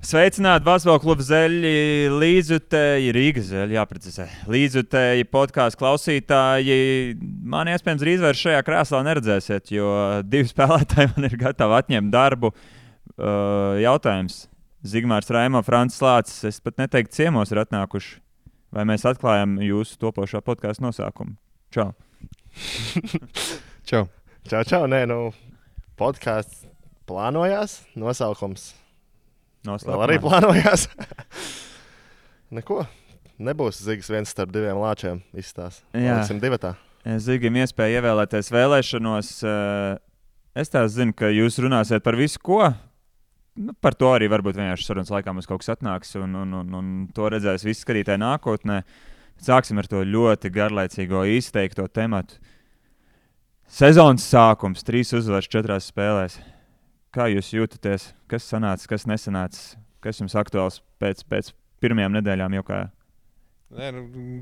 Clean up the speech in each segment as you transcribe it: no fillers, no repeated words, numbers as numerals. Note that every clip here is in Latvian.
Sveicināti Basketbola kluba Zeļi, līdzjutēji, Rīgas Zeļi, jāprecizē. Līdzjutēji podkāstu klausītāji. Man iespējams drīz vairs šajā krēslā neredzēsiet, jo divi spēlētāji man ir gatavi atņemt darbu. Jautājums. Zigmārs Raimo, Francis Lācis, es pat neteiktu ciemos ir atnākuši. Vai mēs atklājam jūsu topošā podkāstu nosaukumu? Čau. Čau. Čau, nē, podkāsts plānojās, nosaukums. Vēl arī plānojās. Neko. Nebūs Zigas viens starp diviem lāčiem izstās. Liksim divatā. Zigim iespēja ievēlēties vēlēšanos. Es tā zinu, ka jūs runāsiet par visu, ko. Par to arī varbūt vienkārši sarunas laikā mums kaut kas atnāks un to redzēs visi skatītāji nākotnē. Sāksim ar to ļoti garlaicīgo izteikto tematu. Sezonas sākums, 3 uzvaras 4 spēlēs. Kā jūs jūtaties? Kas sanāca, kas nesanāca? Kas jums aktuāls pēc pirmajām nedēļām jau kā?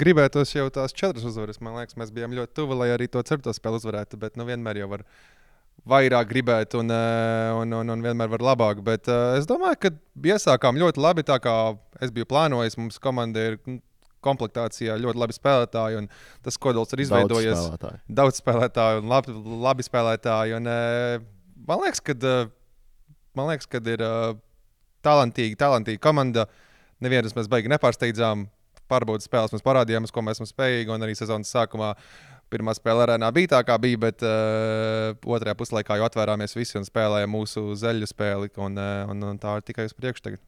Gribētos jau tās 4 uzvaras. Man liekas, mēs bijām ļoti tuvi, lai arī to 4. spēli uzvarētu, bet vienmēr jau var vairāk gribēt un vienmēr var labāk. Bet es domāju, ka iesākām ļoti labi, tā kā es biju plānojis. Mums komanda ir komplektācijā ļoti labi spēlētāji, un tas kodols ir izveidojies. Daudz spēlētāju un labi spēlētāji. Un, Man liekas, ka ir talantīga komanda. Nevienus mēs baigi nepārsteidzām. Pārbaudas spēles mēs parādījām, ko mēs esam spējīgi. Un arī sezonas sākumā pirmā spēle arēnā bija tā, kā bija, bet otrajā puslaikā jau atvērāmies visi un spēlējām mūsu zeļu spēli. Un tā ir tikai uz priekšu tagad.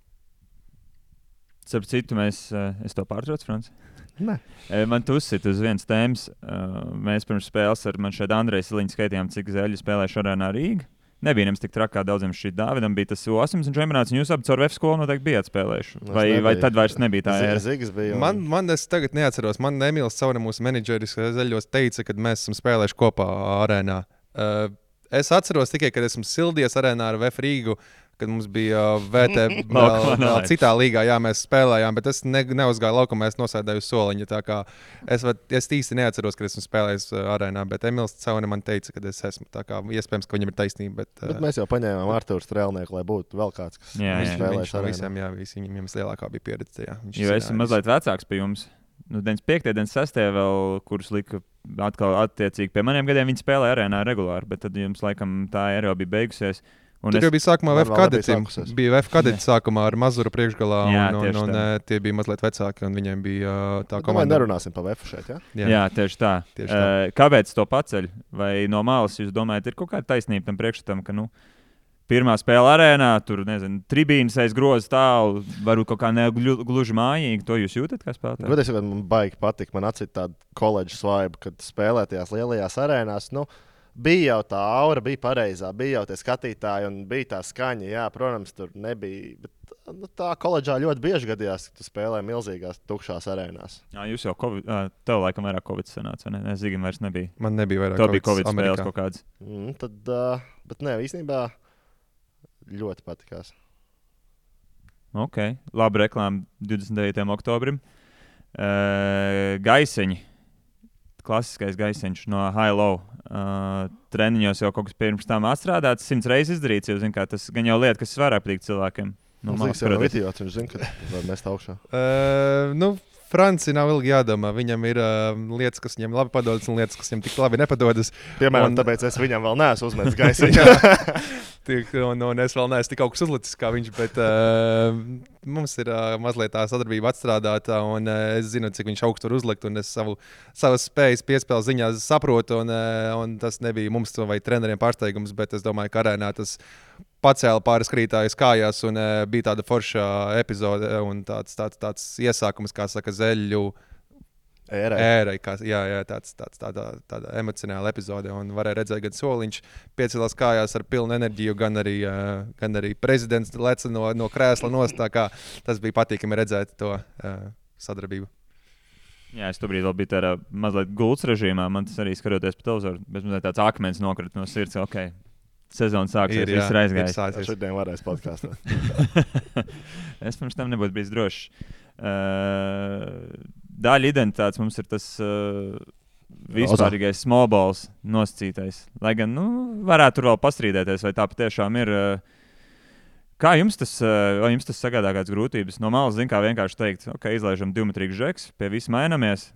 Starp citu, es to pārtraucu, Franci? Nē. Man tu uzsit uz vienas tēmas. Mēs pirms spēles ar man šeit Andreju Siliņu skaitījām, cik zeļu spēlēšu arēnā Rīga. Nebija nemaz tik trakā daudziem šī Dāvidam, bija tas U18 čempionāts, un jūs abi caur VF skolu noteikti bijāt spēlējuši. Vai tad vairs nebija tā ēra? Zigas bija. Man es tagad neatceros. Man Emīls Caune, mūsu menedžeris zeļos, teica, kad mēs esam spēlējuši kopā arēnā. Es atceros tikai, kad esmu sildies arēnā ar VF Rīgu, kad mums bija VT vēl citā līgā, jā, mēs spēlējām, bet es neuzgāju laukumā, es nosēdēju uz soliņa, tā kā es īsti neatceros, kad esmu spēlējis arēnā, bet Emīls Caune man teica, kad es esmu, tā kā iespējams, ka viņam ir taisnība, bet mēs jau paņēmām Arturu Strēlnieku, lai būtu vēl kāds, kas spēlēs arēnā. Viņam lielākā bija pieredze, jā. Jo esmu mazliet vecāks pie jums. 95. 96. vēl, kurus lika atkal attiecīgi pie maniem gadiem, viņi spēlēja arēnā regulāri, bet tad jums laikam tā era jau bija beigusies. Tur jau bija sākumā VF kadetim. Bija VF kadeti sākumā ar Mazuru priekšgalā, un tie bija mazliet vecāki, un viņiem bija tā komanda. Nerunāsim par VF šeit, jā? Jā, tieši tā. Kāpēc to paceļ? Vai no malas jūs domājat, ir kaut kāda taisnība tam priekšstatam, ka, pirmā spēle arēnā, tur, tribīnas aiz groza tālu, varbūt kaut kā negluži mājīgi, to jūs jūtat kā spēlētāji? Godīgi sakot, man baigi patīk, man atcīt tādu koledžas vibe, kad spēlētajās lielajās arēnās, bija jau tā aura, bija pareizā, bija jau tie skatītāji un bija tā skaņa. Jā, protams, tur nebija. Bet tā koledžā ļoti bieži gadījās, ka tu spēlē milzīgās tukšās arēnās. Jā, jūs jau tev laikam vairāk Covid sanāca, ne? Zigim vairs nebija. Man nebija vairāk Covid. Tev bija Covid spēles kaut kādas. Bet nē, īstenībā ļoti patikās. Ok, labi reklāma 29. oktobrim. Gaisiņi. Klasiskais gaisiņš no high-low. Treniņos jau kaut kas pirms tam atstrādāts, 100 reizes izdarīts, jo, tas gan jau lieta, kas vairāk patīk cilvēkiem. Zigs jau nav idiots, viņš zina, ka var mest augšā. Franci nav ilgi jādomā. Viņam ir lietas, kas viņam labi padodas, un lietas, kas viņam tik labi nepadodas. Piemēram, tāpēc es viņam vēl neesmu uzmetis gaisiņu. un es vēl neesmu tik augsts uzlicis kā viņš, bet mums ir mazliet tā sadarbība atstrādāta, un es zinu, cik viņš augstu var uzlikt, un es savas spējas piespēles ziņā saprotu, un tas nebija mums vai treneriem pārsteigums, bet es domāju, ka arēnā tas pacēla pāris krītājus kājās, un bija tāda forša epizode un tāds iesākums, kā saka, zeļu ērai. Tāda emocionāla epizode, un varēja redzēt, gan Soliņš piecēlās kājās ar pilnu enerģiju, gan arī prezidents leca no krēsla nost, tā kā tas bija patīkami redzēt to sadarbību. Jā, es tobrīd vēl biju tādā mazliet gultas režīmā, man tas arī skatoties pa televizoru, bet mazliet tāds akmens nokrita no sirds, ok. Sezona sāksies, viss ir aizgājis. Šodien varēs podkāstā. Es pirms tam nebūtu bijis drošs. Daļa identitātes mums ir tas vispārīgais small balls nosacītais. Lai gan, varētu tur vēl pastrīdēties, vai tā patiešām ir Kā jums tas sagādā kādas grūtības? No malas, kā vienkārši teikt, ok, izlaižam 2-metrīgu žeks, pie visa mainamies.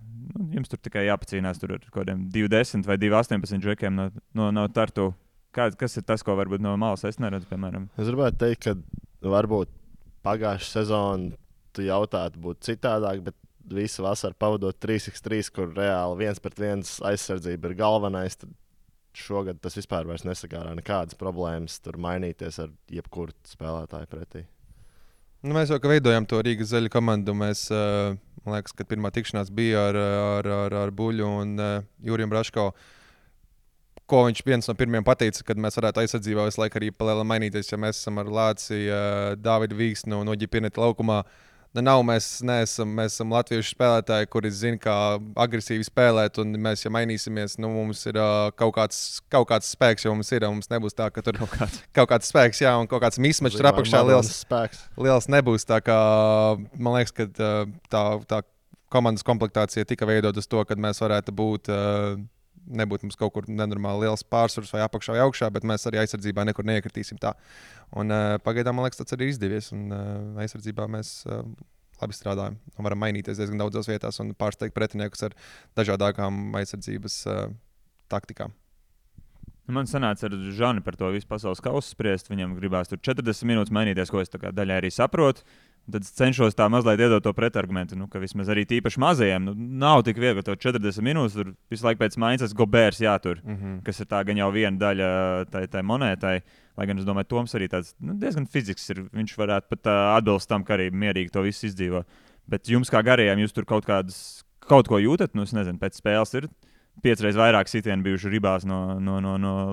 Jums tur tikai jāpacīnās ar kaut kādiem 2-10 vai 2-18 žekiem no Tartu. Kas ir tas, ko varbūt no malas es neredzu, piemēram? Es gribētu teikt, ka varbūt pagājušā sezona tu jautātu būt citādāk, bet visu vasaru pavadot 3x3, kur reāli 1-1 aizsardzība ir galvenais, tad šogad tas vispār nesagārā nekādas problēmas tur mainīties ar jebkuru spēlētāju pretī. Mēs jau veidojam to Rīgas zaļu komandu. Mēs, man liekas, kad pirmā tikšanās bija ar Buļu un Juriju Braško, ko viņš viens no pirmajiem pateica, kad mēs varētu aizsardzībā visu laiku arī palēnām mainīties, ja mēs esam ar Lāci, Dāvidu Vīksnu no Ģipineta laukumā. Mēs esam latviešu spēlētāji, kuri zina, kā agresīvi spēlēt, un mēs, ja mainīsimies, mums ir kaut kāds spēks, jo mums nebūs tā, ka tur kaut kāds spēks, jā, un kaut kāds mismačs tur apakšā liels nebūs. Tā kā, man liekas, ka tā komandas komplektācija tika veidot uz to, ka mēs varētu nebūt mums kaut kur nenormāli liels pārsvars vai apakšā vai augšā, bet mēs arī aizsardzībā nekur neiekritīsim tā. Un pagaidām, man liekas, tas arī izdevies, un aizsardzībā mēs labi strādājam un varam mainīties diezgan daudzās vietās un pārsteigt pretiniekus ar dažādākām aizsardzības taktikām. Man sanāca ar Žani par to visu pasaules kausu spriest. Viņam gribās tur 40 minūtes mainīties, ko es daļai arī saprotu. Tad cenšos tā mazliet iedot to pretargumentu, ka vismaz arī tīpaši mazajiem nav tik viegli to 40 minūtes. Tur visu laiku pēc maiņas Gobērs jātur, kas ir tā gan jau viena daļa tai monētai. Lai gan es domāju, Toms arī tāds diezgan fizisks ir. Viņš varētu pat atbilst tam, ka arī mierīgi to visu izdzīvo. Bet jums kā garajiem, jūs tur kaut ko jūtat? Es nezinu, pēc spēles ir 5 reizes vairāk sitienu bijuši ribās no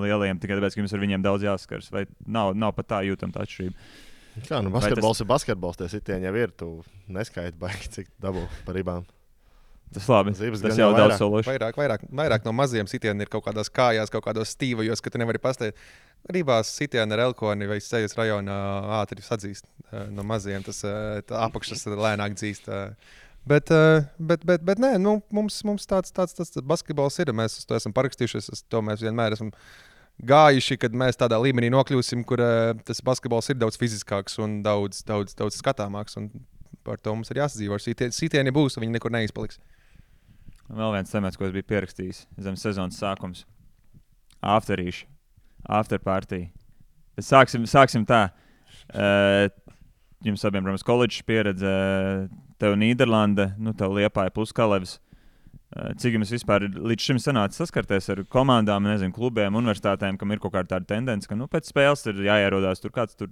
lielajiem, tikai tāpēc, ka jums ar viņiem daudz jāskars. Vai nav pat tā jūtama tā atšķirība? Kā, basketbols ir basketbols, tie sitieni jau ir. Tu neskaiti baigi, cik dabū par ribām. Tas labi. Tas jau daudz sološi. Vairāk no maziem sitieniem ir kaut kādās kājās, kaut kādos stīvajos, ka tu nevari pastāvēt. Ribās sitieni ar elkoni vai sejas rajonā ātri sadzīst. No maziem tas apakšas lēnāk dzīst. Bet nē, mums tāds basketbols ir. Mēs uz to esam parakstījušies. To mēs vienmēr esam gājuši, kad mēs tādā līmenī nokļūsim, kur tas basketbols ir daudz fiziskāks un daudz skatāmāks. Un par to mums ir jāsadzīvo. Sitieni būs, un viņi nekur neizpaliks. Vēl viens temats, ko es biju pierakstījis zem sezonas sākums. Afterparty. Sāksim tā. Jums abiem, protams, koledžas pieredze, tev Nīderlande, tev Liepāja plus Kalevs. Cik jums vispār līdz šim sanāca saskarties ar komandām, nezinu, klubiem, universitātēm, kam ir kaut kāda tāda tendence, ka pēc spēles ir jāierodās tur kāds tur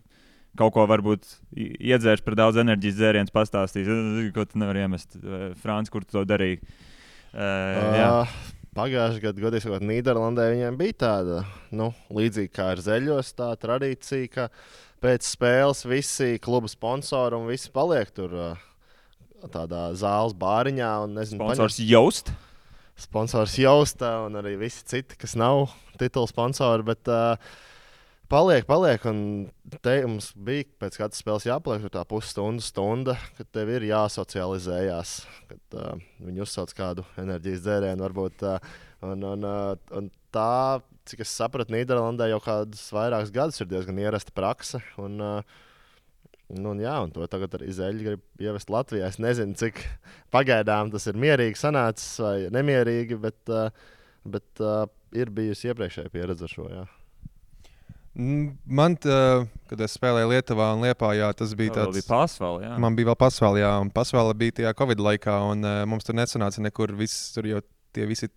kaut ko varbūt iedzērš par daudz enerģijas dzēriens, pastāstīs, ko tu nevari iemest. Frāns, kur tu to darīji? Pagājušajā gadā, godīgi sakot, Nīderlandē viņiem bija tāda, līdzīga kā ar zeļos, tā tradīcija, ka pēc spēles visi kluba sponsori un visi paliek tur tādā zāles bāriņā. Sponsors Joust? Sponsors Joust un arī visi citi, kas nav titula sponsori, bet paliek. Un te mums bija pēc katras spēles jāpaliek tur tā pusstunda, kad tev ir jāsocializējās, kad viņi uzsauc kādu enerģijas dzērienu varbūt. Un tā, cik es sapratu, Nīderlandē jau kādus vairākus gadus ir diezgan ierasta prakse. Un to tagad arī Zeļi grib ievest Latvijā. Es nezinu, cik pagaidām tas ir mierīgi sanācis vai nemierīgi, bet ir bijusi iepriekšēja pieredze ar šo. Jā. Man, kad es spēlēju Lietuvā un Liepājā, tas bija tāds... Bija Pasvalā, jā. Man bija vēl Pasvalā, jā, un Pasvalā bija tajā Covid laikā, un mums tur nesanāca nekur viss, tur jau tie visi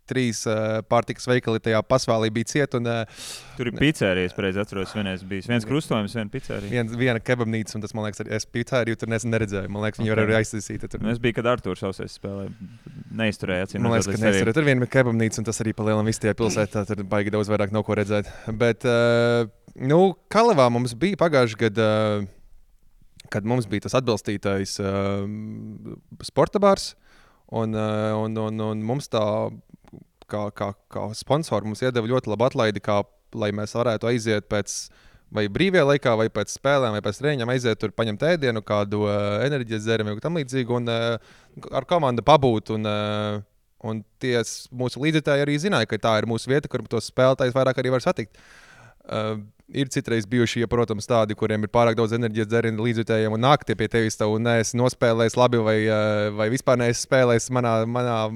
3 pārtikas veikali tajā Pasvalā bija ciet. Tur ir pizzerijas, pareizi atceros, viens krustojums, viena pizzerija. Viena kebabnīca, un tas, man liekas, es pizzeriju tur neredzēju. Man liekas, viņi var arī aizsīsīt. Es biju, kad Artūrs Sausais spēlēja, neizturēja. Man liekas, ka neizturēja. Tur viena kebabnīca, un tas arī pa lielam viss tajā pilsētā, tur baigi daudz vairāk nav ko redzēt. Bet, Kalevā mums bija pagājuši gadu, kad mums bija tas atbalstītais sporta bārs, un mums tā kā sponsori mums iedeva ļoti labu atlaidi, lai mēs varētu aiziet pēc vai brīvajā laikā, vai pēc spēlēm, vai pēc treniņiem aiziet tur, paņemt ēdienu, kādu enerģijas dzērienu vai tam līdzīgu, un ar komandu pabūt. Un tie mūsu līdzekļi arī zināja, ka tā ir mūsu vieta, kur tos spēlētājus vairāk arī var satikt. Ir citreiz bijuši, ja, protams, tādi, kuriem ir pārāk daudz enerģijas dzērienu līdzjutējiem un nāk tie pie tevis, un neesi nospēlējis labi vai vispār neesi spēlējis manā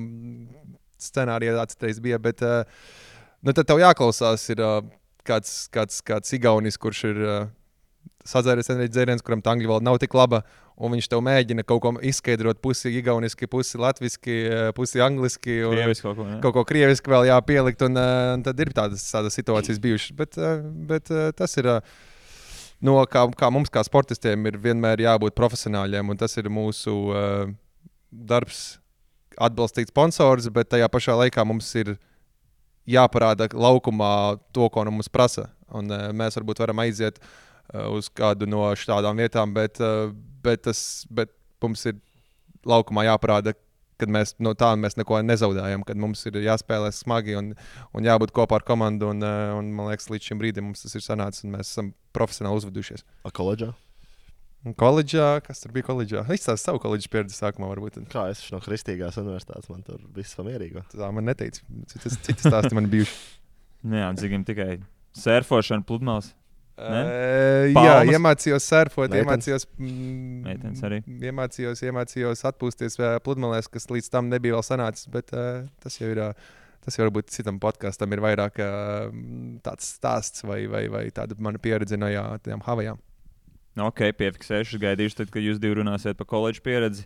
scenārijā tā citreiz bija, bet tad tev jāklausās ir kāds igaunis, kurš ir sadzēries enerģijas dzēriens, kuram tā angļu valoda nav tik laba, un viņš tev mēģina kaut ko izskaidrot pusi igauniski, pusi latviski, pusi angliski. Krieviski kaut ko krieviski vēl jāpielikt, un tad ir tādas situācijas bijušas. Bet tas ir, kā mums kā sportistiem ir vienmēr jābūt profesionāļiem, un tas ir mūsu darbs atbalstīt sponsors, bet tajā pašā laikā mums ir jāparāda laukumā to, ko no mums prasa. Un mēs varbūt varam aiziet uz kādu no šādām vietām, bet mums ir laukumā jāparāda, ka mēs no tā mēs neko nezaudējam, kad mums ir jāspēlē smagi un jābūt kopā ar komandu. Un man liekas, līdz šim brīdim mums tas ir sanācis, un mēs esam profesionāli uzvedušies. Koledžā? Koledžā? Kas tur bija koledžā? Izstāst savu koledžas pieredzi sākumā varbūt. Kā es no Kristīgās universitātes, man tur viss pamierīgo. Tā man neteica. Citas stāsti man bijuši. Jā, Dzigim tikai surfošana, pludmales. Jā, iemācījos surfot, iemācījos atpūsties pludmalēs, kas līdz tam nebija vēl sanācis, bet tas jau ir, varbūt citam podkastam ir vairāk tāds stāsts vai tāda mana pieredze no tām Havajām. Ok, piefiksēšu, gaidīšu tad, kad jūs divi runāsiet par koledžu pieredzi.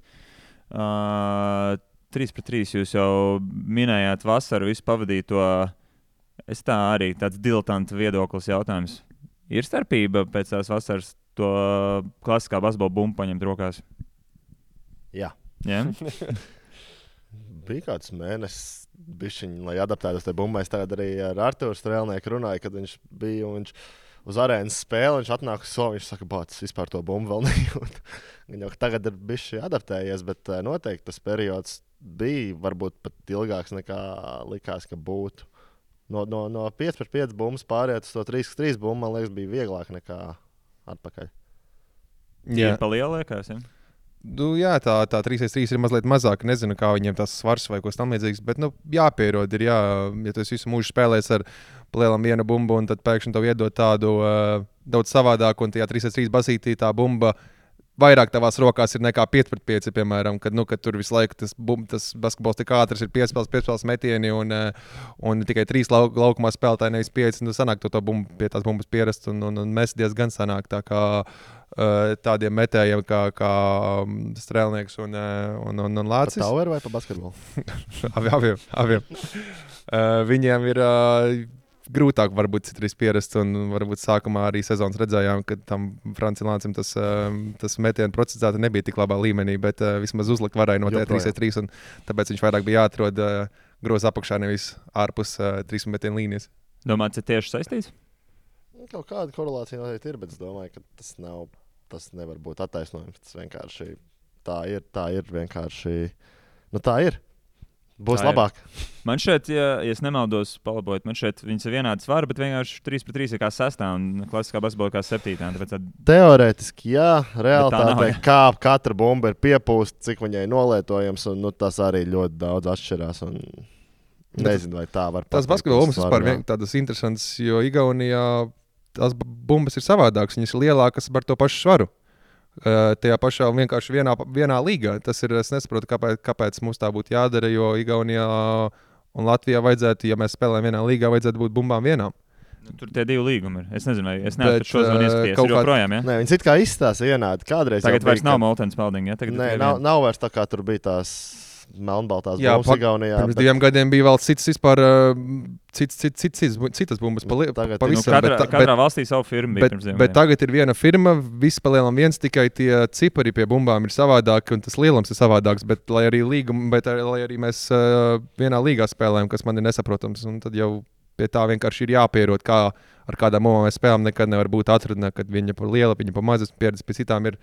3-3 jūs jau minējāt vasaru, visu pavadīto. Es tā arī tāds diletanta viedoklis jautājums. Ir starpība pēc tās vasaras to klasiskā basketbola bumbu paņemt rokās? Jā. Yeah? Bija kāds mēnesis, lai adaptētos tajā bumbā. Es tagad arī ar Arturu Strēlnieku runāju, kad viņš bija un viņš uz arēnas spēli. Viņš atnāk uz somu, viņš saka, bāc, vispār to bumbu vēl nejūt. Viņa jau tagad ir bišķi adaptējies, bet noteikti tas periods bija varbūt pat ilgāks nekā likās, ka būtu. No 5-5 bumbas pāriet uz to 3-3 bumbu, man liekas, bija vieglāk nekā atpakaļ. Jā, pa lielu liekas, ja? Jā, tā 3-3 ir mazliet mazāk. Nezinu, kā viņiem tas svars vai kas tam līdzīgs, bet jāpierod. Ja tu visu mūžu spēlēs ar lielam vienu bumbu, un tad pēkšņi tev iedod tādu daudz savādāku, un tajā 3-3 basītī tā bumba vairāk tavās rokās ir nekā 5-5, piemēram, kad tur visu laiku tas basketbols tik ātrs ir piespēles metieni un tikai 3 laukumā spēlētāji, nevis 5. Sanāk to bumbu pie tās bumbas pierast un mēs diezgan sanāk tā kā tādiem metējiem kā Strēlnieks un Lācis. Pa taueru vai pa basketbolu? Abiem. Viņiem ir grūtāk varbūt citreiz pierast, un varbūt sākumā arī sezonas redzējām, ka tam Francilāncim tas metienu procesāti nebija tik labā līmenī, bet vismaz uzlikt varēja no 3-3, un tāpēc viņš vairāk bija jāatrod groza apakšā, nevis ārpus 3 metienu līnijas. Domājat, tas tieši saistīts? Kaut kāda korelācija noteikti ir, bet es domāju, ka tas nevar būt attaisnojums. Tas vienkārši tā ir vienkārši, tā ir. Būs tā labāk. Man šeit, ja es nemaldos, palabojiet, man šeit viņas ir vienādas svara, bet vienkārši 3-3 ir kā 6. un klasiskā basketbola kā 7. Teorētiski, jā, realitātē kā katra bumba ir piepūsta, cik viņai nolietojams, un tas arī ļoti daudz atšķirās. Nezinu, vai tā var pateikt. Tas basketbola bumbas vispār tādas interesantas, jo Igaunijā tās bumbas ir savādākas, viņas ir lielākas par to pašu svaru. Tajā pašā vienkārši vienā līgā. Tas ir, es nesaprotu, kāpēc mums tā būtu jādara, jo Igaunijā un Latvijā vajadzētu, ja mēs spēlējam vienā līgā, vajadzētu būt bumbām vienām. Tur tie 2 līgumi ir. Es nezinu, vai es neesmu šo zvanu ieskaties. Ir joprojām, ja? Nē, viņas it kā izstāsta vienādi. Kādreiz tagad vairs nav Moltens Spalding, ja? Nē, nav vairs tā kā tur bija tās melnbaltās bumbas Igaunijā. Pirms 2 gadiem bija vēl citas bumbas pavisam. Katrā valstī savu firmu bija pirms 2 gadiem. Bet tagad ir viena firma, viss pa lielam viens, tikai tie cipari pie bumbām ir savādāki un tas lielums ir savādāks, bet lai arī mēs vienā līgā spēlējam, kas man ir nesaprotams, un tad jau pie tā vienkārši ir jāpierod, kā ar kādām bumbām mēs spēlējam, nekad nevar būt atruna, kad viņa par liela, viņa par mazas pieredzes, pie citām ir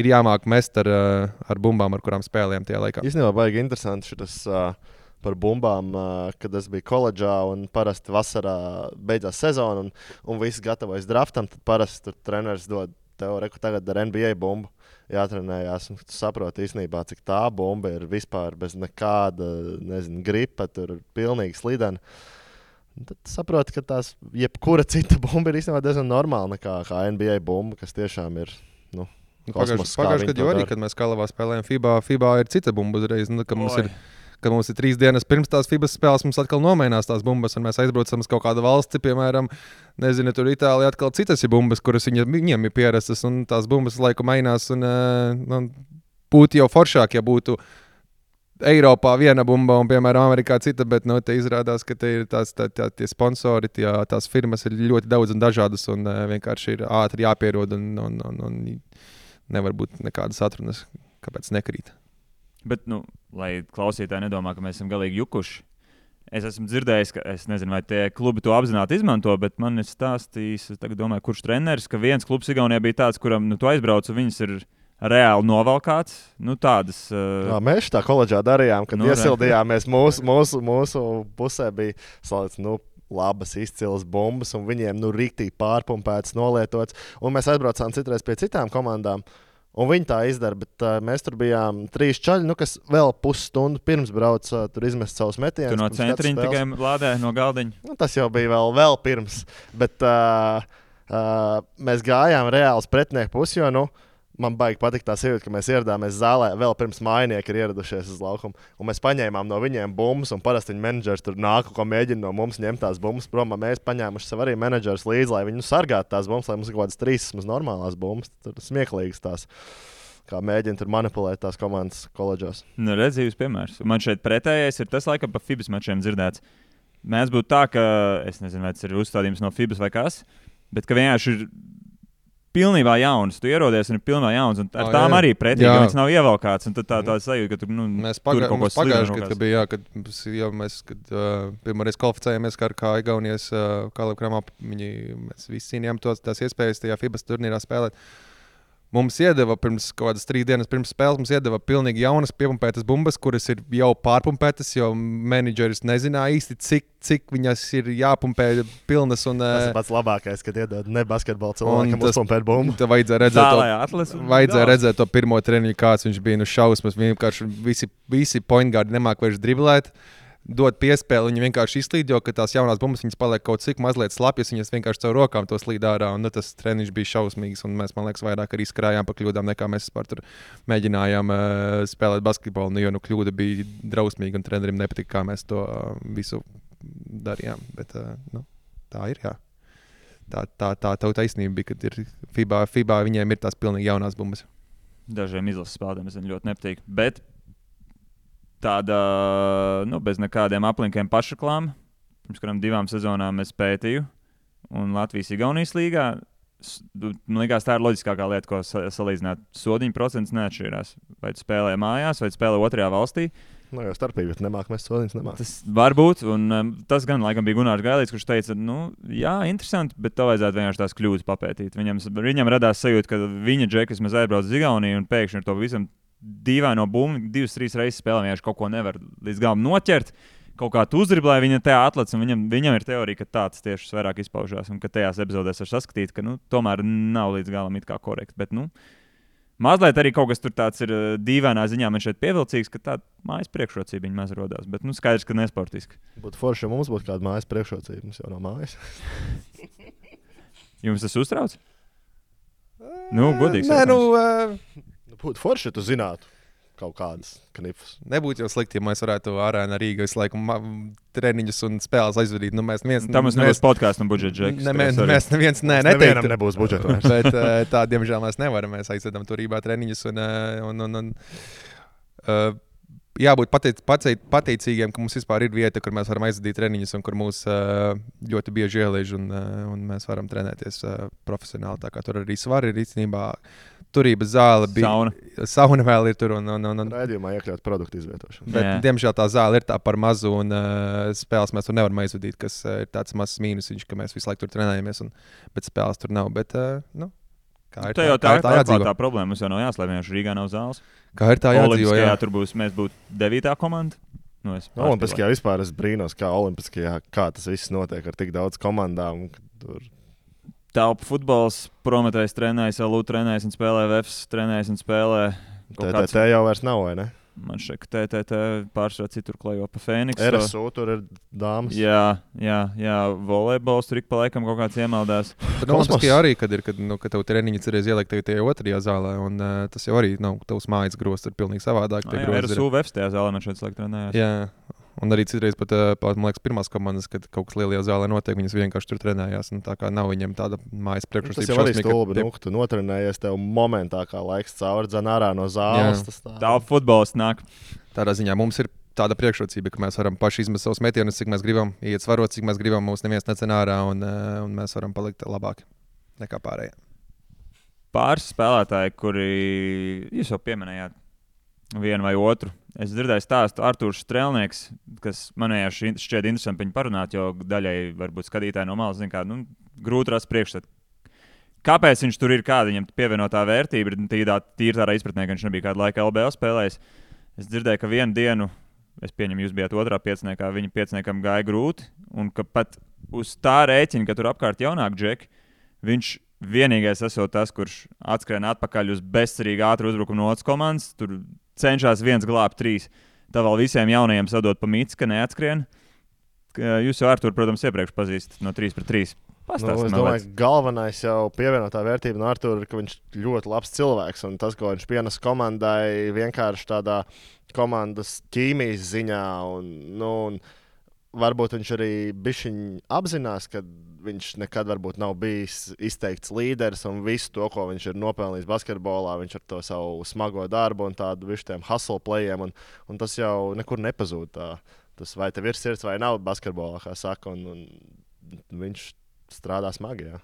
jāmāk mest ar bumbām, ar kurām spēlējam tajā laikā. Īstenībā baigi interesanti šitas par bumbām, kad es biju koledžā un parasti vasarā beidzās sezona un visi gatavojas draftam, tad parasti tur treneris dod tev reku tagad ar NBA bumbu jātrenējās, un tu saproti īstenībā, cik tā bumba ir vispār bez nekāda, gripa, tur pilnīgi slidena. tad saproti, ka tās jebkura cita bumba ir īstenībā diezgan normāla nekā kā NBA bumba, kas tiešām ir. Pagājušajā gadā arī, kad mēs Kalavā spēlējām FIBA ir cita bumba uzreiz. Kad mums ir 3 dienas pirms tās FIBA spēles, mums atkal nomainās tās bumbas, un mēs aizbraucam uz kaut kādu valsti, piemēram, nezinu, tur Itālijā atkal citas ir bumbas, kuras viņiem ir pierastas, un tās bumbas laiku mainās. Un būtu jau foršāk, ja būtu Eiropā viena bumba un, piemēram, Amerikā cita, bet te izrādās, ka te ir tie sponsori, tās firmas ir ļoti daudz un dažādas, un vienkārši ir ātri jāpierod, un nevar būt nekādas atrunas, kāpēc nekrīt. Bet, lai klausītāji nedomā, ka mēs esam galīgi jukuši, es esmu dzirdējis, ka es nezinu, vai tie klubi to apzināti izmanto, bet man ir stāstījis, es tagad domāju, kurš treneris, ka viens klubs Igaunijā bija tāds, kuram tu aizbrauc, un viņas ir reāli novalkāts. Tādas. Jā, mēs tā koledžā darījām, kad iesildījāmies mūsu pusē bija salīdz, labas, izcilas bumbas, un viņiem rīktīgi pārpumpētas, nolietotas. Un mēs aizbraucām citreiz pie citām komandām, un viņi tā izdara, bet mēs tur bijām 3 čaļi, kas vēl pusstundu pirms brauca tur izmest savus metienus. Tu no centriņa tikai lādē no galdiņa? Tas jau bija vēl pirms, bet mēs gājām reāli uz pretinieku pusi, jo, man baigi patīk tā sajūta, ka mēs ieradāmies zālē vēl pirms mājinieki ir ieradušies uz laukumu. Un mēs paņēmām no viņiem bumbas, un parasti viņa menedžers tur nāk, ko mēģina no mums ņemt tās bumbas prom. Mēs paņēmuši sev arī menedžers līdzi, lai viņi sargātu tās bumbas, lai mums ir kaut kādas 3 normālās bumbas. Tur smieklīgas tās, kā mēģina tur manipulēt tās komandas koledžās. Redzīvs piemērs. Man šeit pretējais ir tas, laikam, pa FIBAS mačiem dzirdēts. Mēs būtu tā, ka, es nezinu, vai tas ir uzstādījums no FIBAS vai kas, bet ka vienkārši ir pilnībā jauns. Tu ierodies un ir pilnībā jauns. Un ar tām arī pretīgi, ka viņas nav ievalkāts. Un tad tā sajūta, ka tur mēs pagājuši, kad pirmoreiz kvalificējāmies kā Igaunijas Kalevkramā, mēs visi cīnījām tās iespējas tajā FIBAS turnīrā spēlēt. Mums iedeva pirms kaut kādas 3 dienas pirms spēles, mums iedeva pilnīgi jaunas piepumpētas bumbas, kuras ir jau pārpumpētas, jo menedžeris nezināja īsti, cik viņas ir jāpumpē pilnas. Tas ir pats labākais, kad iedod ne basketbola cilvēkam uzpumpēt bumbu. Tad vajadzēja redzēt to pirmo treniņu, kāds viņš bija šausmas. Vienkārši visi point guardi nemāk vairs driblēt. Dot piespēli, viņi vienkārši izslīd, jo tās jaunās bumbas paliek kaut cik mazliet slapjas, viņas vienkārši caur rokām to slīd ārā. Tas treniņš bija šausmīgs, un mēs, man liekas, vairāk arī skrājām pa kļūdām, nekā mēs tur mēģinājām spēlēt basketbolu. Jo kļūda bija drausmīga, un trenerim nepatika, kā mēs to visu darījām. Bet tā ir, jā. Tā taisnība bija, kad ir FIBA viņiem ir tās pilnīgi jaunās bumbas. Dažiem izlases spēlētājiem es ļoti nepatīk. Bet tāda, bez nekādiem aplinkiem pašreklāma. Pirms kādām 2 sezonām es pētīju. Un Latvijas-Igaunijas līgā, man liekas, tā ir loģiskākā lieta, ko salīdzināt. Sodiņu procents neatšķirās. Vai tu spēlē mājās, vai tu spēlē otrajā valstī. Jau starpība, bet mēs sodiņus nemāk. Tas var būt, un tas gan laikam bija Gunārs Gailīts, kurš teica, jā, interesanti, bet tev vajadzētu vienkārši tās kļūdas papētīt. Viņam radās sajūta, ka viņa džekas mēs aizbrauc uz Igauniju un pēkšņi ar to visam dīvaino bumbu 2-3 reizes spēlē, vienkārši kaut ko nevar līdz galam noķert, kaut kā tu uzdriblē, viņa tajā atlec, un viņam ir teorija, ka tāds tieši vairāk izpaužās, un ka tajās epizodēs var saskatīt, ka tomēr nav līdz galam it kā korekti, bet mazliet arī kaut kas tur tāds ir dīvainā ziņā man šeit pievilcīgs, ka tāda mājas priekšrocība viņa maz rodās, bet skaidrs, ka nesportiski. Būtu forši, ja mums būtu kāda mājas priekšrocība, mums jau nav mājas. Jums tas uztrauc? Godīgs. Būtu forši, ja tu zinātu kaut kādas knifus. Nebūtu jau slikti, ja mēs varētu arēnā Rīgā visu laiku treniņus un spēles aizvadīt. Tam mums nebūs podkāstu un budžeta džeks. Mēs neviens nevienam nebūs budžeta. Bet tā, diemžēl, mēs nevaram. Mēs aizvedam tur Rīgā treniņus un jābūt pateicīgiem, ka mums vispār ir vieta, kur mēs varam aizvadīt treniņus un kur mūs ļoti bieži ieliež un mēs varam trenēties profesionāli. Tā kā tur arī svar ir īstenībā. Turības zāle bija. Sauna vēl ir tur. Raidījumā iekļaut produktu izvietošanu. Bet, diemžēl, tā zāle ir tā par mazu, un spēles mēs tur nevaram aizvadīt, kas ir tāds mazs mīnusiņš, ka mēs visu laiku tur trenējamies, bet spēles tur nav. Bet, kā ir tā problēma? Mums jau nav jāslēp, vienkārši Rīgā nav zāles. Kā ir tā jādzīvo? Tur mēs būtu 9. komanda. Olimpiskajā vispār es brīnos, kā Olimpiskajā, kā tas viss notiek ar tik daudz komandām. Telpu futbols, Prometējs trenējas, LU trenējas un spēlē, Vefs trenējas un spēlē. Tā jau vairs nav, vai ne? Man šeit, ka TTT pārsvarā citur klejo pa Fēniksu. RSU tur ir dāmas. Jā, volejbols tur ik pa laikam kaut kāds iemaldās. Bet Olimpiskajā arī, kad tev treniņi cerēs ielikt tajā otrajā zālē, un tas jau arī nav tavs mājas grosts, ir pilnīgi savādāk. RSU Vefs tajā zālē man šeit slēgt trenējās. Jā. Un arī citreiz pat, man liekas, pirmās komandas, kad kaut kas lielajā zālē notiek, viņas vienkārši tur trenējās. Tā kā nav viņiem tāda mājas priekšrocība. Tas jau arī stulbi, tu notrenējies tev momentā, kā laiks cauri dzen ārā no zāles. Tā futbols nāk. Tādā ziņā mums ir tāda priekšrocība, ka mēs varam paši izmest savus metienus, cik mēs gribam, iet svarot, cik mēs gribam, mums neviens necen ārā, un mēs varam palikt labāki nekā pārējie. Pāris spēlētāji, kuri jūs jau pieminējāt vienu vai otru. Es dzirdēju stāstu Artūrs Strēlnieks, kas man šķiet interesanti viņu parunāt, jo daļai varbūt skatītāji no malas zina, kā grūti rast priekšstatu. Kāpēc viņš tur ir, kāda viņam pievienotā vērtība? Tīri tādā izpratnē, ka viņš nebija kādu laiku LBL spēlējis. Es dzirdēju, ka vienu dienu, es pieņemu, jūs bijāt otrā pieciniekā, viņa pieciniekam gāja grūti, un ka pat uz tā rēķina, ka tur apkārt jaunāk džeki, viņš vienīgais esot tas, kurš atskrien atpakaļ uz bezcerīgi ātru uzbrukumu no otras komandas, tur cenšas viens glābt 3. Tā vēl visiem jaunajiem sadot pa mīts, ka neatskrien. Jūs jau Artūru, protams, iepriekš pazīstat no 3-3. Es domāju, ka galvenais jau pievienotā vērtība no Artūra ir, ka viņš ļoti labs cilvēks. Un tas, ko viņš pienes komandai, vienkārši tādā komandas ķīmijas ziņā. Un varbūt viņš arī bišķiņ apzinās, ka viņš nekad varbūt nav bijis izteikts līderis un visu to, ko viņš ir nopelnījis basketbolā, viņš ar to savu smago darbu un tādu vištiem hustle playiem, un tas jau nekur nepazūd. Tas vai tev ir sirds vai nav basketbolā, kā saka, un viņš strādā smagi, jā.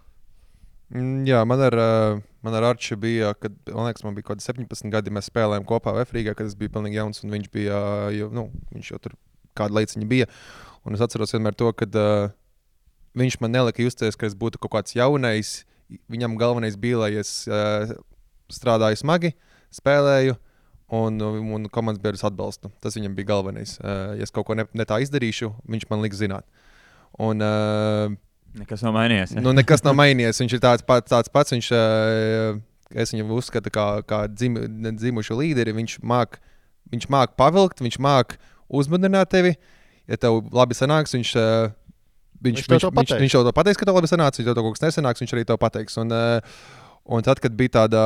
Jā, man ar Arču bija, kad, man liekas, man bija kaut 17 gadi, mēs spēlējām kopā Vefrīgā, kad es biju pilnīgi jauns, un viņš bija, viņš jau tur kādu laiciņu bija. Un es atceros vienmēr to, ka viņš man nelika justies, ka es būtu kaut kāds jaunais. Viņam galvenais bija, lai es strādāju smagi, spēlēju, un komandas biedrus atbalstu. Tas viņam bija galvenais. Ja es kaut ko ne tā izdarīšu, viņš man liks zināt. Un, nekas nav mainījies. Ja? Nekas nav mainījies. Viņš ir tāds pats. Es viņu uzskatu kā dzimušu līderi. Viņš māk pavilkt, viņš māk uzmudināt tevi. Ja tev labi sanāks, viņš tev to pateiks, ka tev labi sanāks, ja tev kaut kas nesanāks, viņš arī tev pateiks. Un tad, kad bija tāda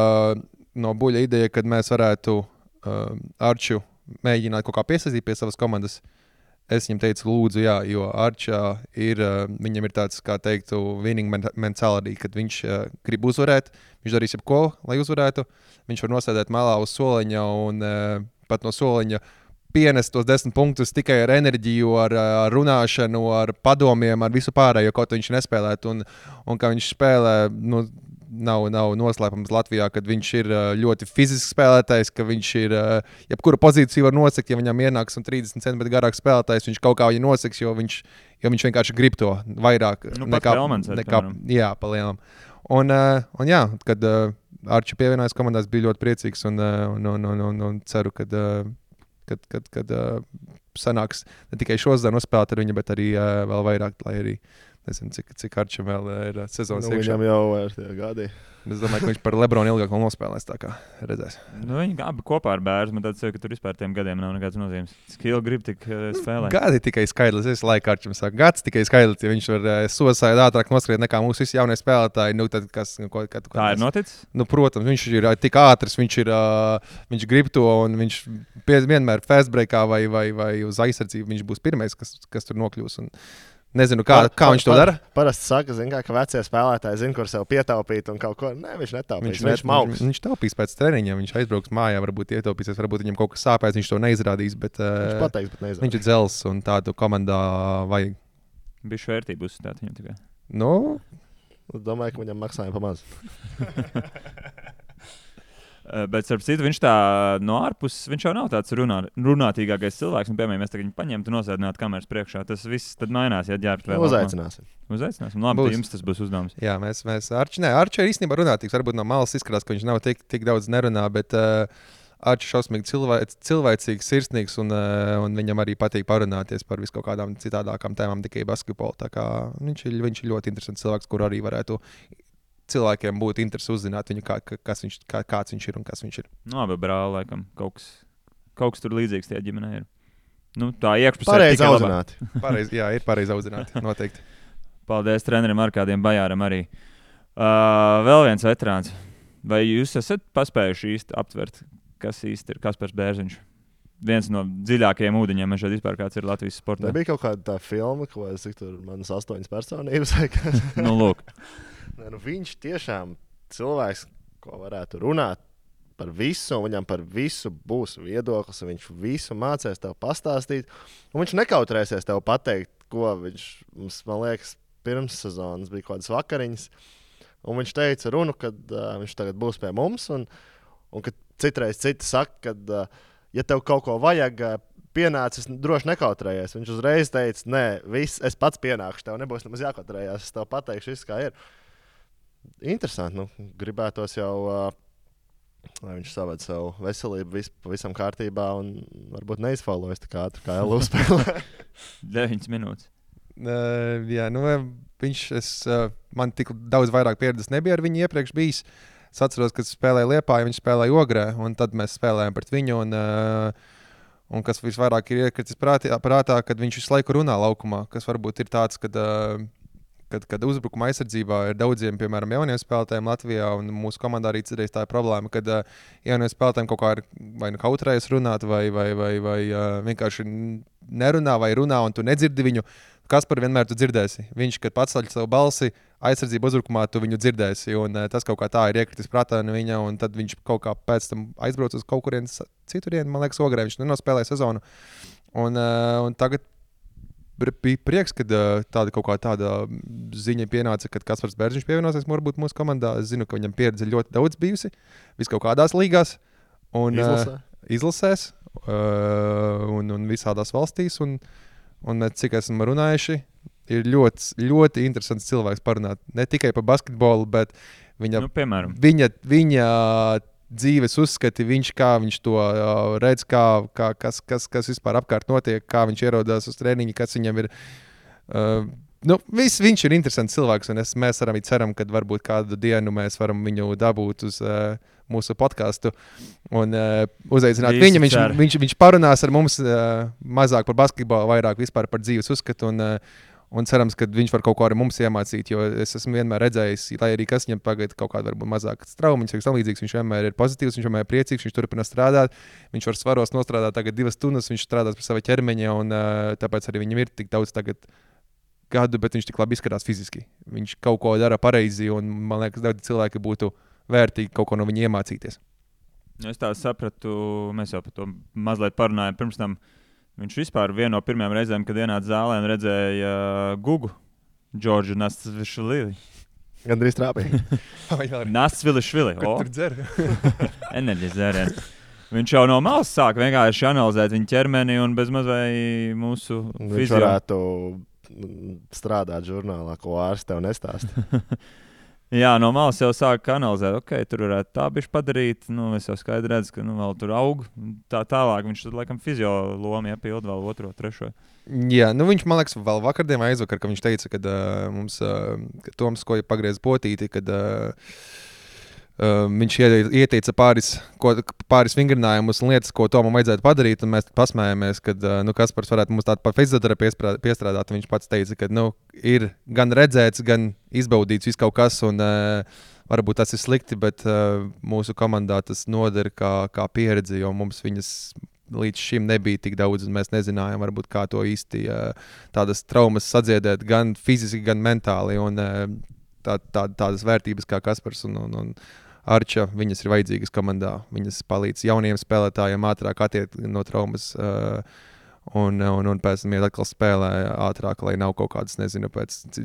no buļa ideja, kad mēs varētu Arču mēģināt kaut kā piesaistīt pie savas komandas, es viņam teicu, lūdzu, jā, jo Arčā viņam ir tāds, kā teiktu, winning mentality, kad viņš grib uzvarēt, viņš darīs jebko, lai uzvarētu, viņš var nosēdēt malā uz soliņa un pat no soliņa pienest tos 10 punktus tikai ar enerģiju, ar runāšanu, ar padomiem, ar visu pārējo, kaut viņš nespēlētu. Un kā viņš spēlē, nav noslēpums Latvijā, kad viņš ir ļoti fizisks spēlētājs, ka viņš ir, jebkura pozīcija var nosekt, ja viņam ienāks un 30 cm garāks spēlētājs, viņš kaut kā viņu noseks, jo viņš vienkārši grib to vairāk nekā jā, pa lielam. Un jā, kad Arču pievienojas komandās, bija ļoti priecīgs un ceru, kad sanāks ne tikai šodien nospēlēt ar viņu, bet arī vēl vairāk, lai arī nezinu, cik Arčam vēl ir sezonas iekšā. Viņam jau ir tie gadi. Es domāju, ka viņš par Lebronu ilgāk vēl nospēlēs, tā kā redzēs. Viņi abi kopā ar bērnu, man tāds, ka tur vispār tiem gadiem nav nekāds nozīmes. Skill grib tik spēlēt. Gadi tikai skaidrs, es laiku Arčam saku, gads tikai skaidrs, ja viņš var sosādi ātrāk noskriet nekā mūsu visi jaunie spēlētāji. Tad tā ir noticis? Protams, viņš ir tik ātrs, viņš grib to, un viņš vienmēr fast breakā vai uz aizsardzību viņš būs pirmais, kas tur nokļūs. Nezinu, kā viņš to dara. Parasti saka, ka vecie spēlētāji zina, kur sev pietaupīt un kaut ko. Nē, viņš netaupīs. Viņš taupīs pēc treniņa, viņš aizbrauks mājā, varbūt ietaupīsies, varbūt viņam kaut kas sāpēs, viņš to neizrādīs. Viņš pateiks, bet neizrādīs. Viņš ir dzels un tādu komandā vajag. Bišķi vērtību uzstāt viņam tikai. Domāju, ka viņam maksājumi pamaz. Bet, starp citu, viņš tā no ārpuses, viņš jau nav tāds runātīgākais cilvēks. Piemēram, mēs tagad viņu paņemtu, nosēdinātu kameras priekšā. Tas viss tad mainās, ja ģērbtu vēl. Uzaicināsim. Labi, jums tas būs uzdevums. Jā, mēs Arču ir īstenībā runātīgs. Varbūt no malas izskatās, ka viņš nav tik daudz nerunā, bet Arču šausmīgi cilvēcīgs, sirsnīgs un viņam arī patīk parunāties par visu kaut kādām citādākām tēmām, tikai basketbolu. Tā kā viņš ir ļoti interesants cilvēks, kur arī varētu cilvēkiem būtu interesi uzzināt viņu, kāds viņš ir un kas viņš ir. Abi brāli, laikam, kaut kaut kas tur līdzīgs tajā ģimenē ir. Nu, tā iekšpusē Pareizi audzināti. Ir pareizi audzināti, noteikti. Paldies trenerim Arkādiem Bajāram arī. Vēl viens veterāns. Vai jūs esat paspējuši īsti aptvert, kas īsti ir Kaspars Bērziņš? Viens no dziļākajiem ūdeņiem, man šeit vispār kāds ir Latvijas sportā. Nebija kaut kāda tā filma, ko es tur manas 8 personības vai kas. Nu, lūk. Viņš tiešām cilvēks, ko varētu runāt par visu, un viņam par visu būs viedoklis, un viņš visu mācēs tev pastāstīt, un viņš nekautrēsies tev pateikt, ko viņš mums, man liekas, pirms sezonas bija kaut kādas vakariņas, un viņš teica runu, kad viņš tagad būs pie mums, un kad citreiz citi saka, kad ja tev kaut ko vajag, pienācis, droši nekautrējies. Viņš uzreiz teica, nē, es pats pienākšu, tev nebūs nemaz jākautrējās, es tev pateikšu visu, kā ir. Interesanti, gribētos jau, lai viņš saved savu veselību pavisam kārtībā un varbūt neizfaulojas tā ātri, kā LU spēlē. 9 minūtes. Jā, man tik daudz vairāk pieredzes nebija ar viņu iepriekš bijis. Es atceros, kad spēlēju Liepājā, viņš spēlēja Ogrē, un tad mēs spēlējām pret viņu. Un kas visvairāk ir iekritis prātā, kad viņš visu laiku runā laukumā, kas varbūt ir tāds, kad uzbrukuma aizsardzībā ir daudziem, piemēram, jauniem spēlētājiem Latvijā, un mūsu komandā arī citreiz tā ir problēma, kad jauniem spēlētājiem kaut kā ir vai nu kautrējas runāt, vai vienkārši nerunā vai runā, un tu nedzirdi viņu. Kaspar vienmēr tu dzirdēsi. Viņš, kad paceļ savu balsi, aizsardzību uzbrukumā, tu viņu dzirdēsi, un tas kaut kā tā ir iekritis prātā no viņa, un tad viņš kaut kā pēc tam aizbrauc uz kaut kurienes citurien, man liekas, Ogrē, viņš nenospēlēja sezonu. Un tagad bija prieks, kad tāda ziņa pienāca, kad Kaspars Bērziņš pievienosies varbūt mūsu komandā. Es zinu, ka viņam pieredze ļoti daudz bijusi, vis kaut kādās līgās un izlasēs un visādās valstīs. Un mēs, cik esam runājuši, ir ļoti, ļoti interesants cilvēks parunāt. Ne tikai par basketbolu, bet viņa dzīves uzskati, kā viņš to redz, kas vispār apkārt notiek, kā viņš ierodās uz treniņu, kas viņam ir. Viņš ir interesants cilvēks, un mēs arī ceram, ka varbūt kādu dienu mēs varam viņu dabūt uz mūsu podcastu un uzaicināt viņu. Viņš parunās ar mums mazāk par basketbolu, vairāk vispār par dzīves uzskatu. Un cerams, ka viņš var kaut ko arī mums iemācīt, jo es esmu vienmēr redzējis, lai arī kas viņam tagad kaut kāda varbūt mazākas traumas, viņš vienmēr ir pozitīvs, viņš vienmēr ir priecīgs, viņš turpina strādāt, viņš var svaros nostrādāt tagad 2 stundas, viņš strādās pie sava ķermeņa, un tāpēc arī viņam ir tik daudz tagad gadu, bet viņš tik labi izskatās fiziski. Viņš kaut ko dara pareizi, un man liekas, daudz cilvēki būtu vērtīgi kaut ko no viņa iemācīties. Es tā sapratu, mēs jau par to mazliet parunājām pirms tam. Viņš vispār viena no pirmajām reizēm, kad ienāca zālē un redzēja Gugu, Džordžu Nastsvilišvili. Gandrīz trāpīja. Nastsvilišvili. Kur tur dzer? Enerģijas dzēriens. Viņš jau no malas sāk vienkārši analizēt viņa ķermeni un bezmaz vai mūsu fizio. Viņš varētu strādāt žurnālā, ko ārsts tev nestāsta. Jā, no malas jau sāk analizēt, tur varētu tā bišķi padarīt, es jau skaidri redzu, ka vēl tur aug, tā tālāk viņš tur laikam fizio lomu iepild vēl 2, 3. Jā, viņš, man liekas, vēl vakardien vai aizvakar, ka viņš teica, kad mums Toms, ko pagriez potīti, kad viņš ieteica pāris vingrinājumus un lietas, ko Tomam vajadzētu padarīt, un mēs pasmējāmies, kad Kaspars varētu mums tādu pa fizioterapiju piestrādāt. Viņš pats teica, ka ir gan redzēts, gan izbaudīts viss kaut kas, un varbūt tas ir slikti, bet mūsu komandā tas noder kā pieredze, jo mums viņas līdz šim nebija tik daudz, un mēs nezinājām, varbūt kā to īsti tādas traumas sadziedēt gan fiziski, gan mentāli, un tādas vērtības kā Kaspars un Arča, viņas ir vajadzīgas komandā. Viņas palīdz jauniem spēlētājiem ātrāk attiekt no traumas un pēc tam atkal spēlē ātrāk, lai nav kaut kādas, nezinu,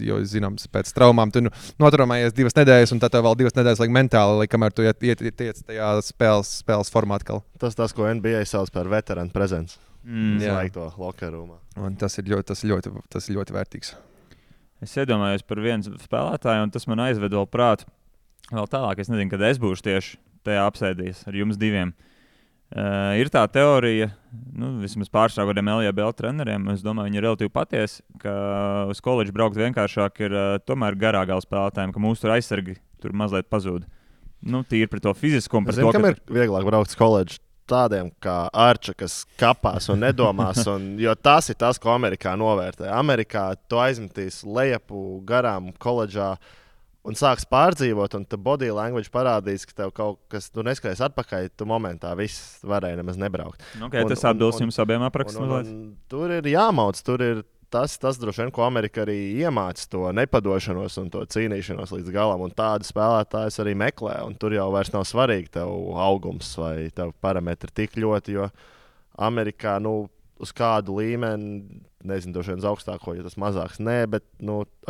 jo zināms, pēc traumām tu notraumējies 2 nedēļas, un tad tev vēl 2 nedēļas laik mentāli, lai kamēr tu iet tajā spēles formā atkal. Tas, ko NBA sauc par veterānu prezents. Laik to locker roomā. Un tas ir ļoti vērtīgs. Es iedomājos par vienu spēlētāju, un tas man aizved vēl prātu. Vēl tālāk, es nezinu, kad es būšu tieši tajā apsēdījis ar jums 2. Ir tā teorija, vismaz pārsvarā kādiem LJBL treneriem, es domāju, viņi ir relatīvi patiesi, ka uz koledžu braukt vienkāršāk ir tomēr garāgā spēlētājiem, ka mūsu aizsargi tur mazliet pazūd. Tīri par to fizisko un par to, kam ir vieglāk braukt uz koledžu? tādiem kā Arča, kas kapās un nedomās. Jo tas ir tas, ko Amerikā novērtē. Amerikā tu aizmetīs lejupu garām koledžā un sāks pārdzīvot, un tu body language parādīs, ka tev kaut kas, tu neskaties atpakaļ, tu momentā viss varēja nemaz nebraukt. Okay, tas atbilst jums abiem aprakstos. Tur ir jāmauc, tur ir tas droši vien, ko Amerika arī iemāca, to nepadošanos un to cīnīšanos līdz galam. Un tādu spēlētājus arī meklē, un tur jau vairs nav svarīgi tev augums vai tev parametri tik ļoti, jo Amerikā, uz kādu līmeni, nezinu, droši vien uz augstāko, jo tas mazāks. Nē, bet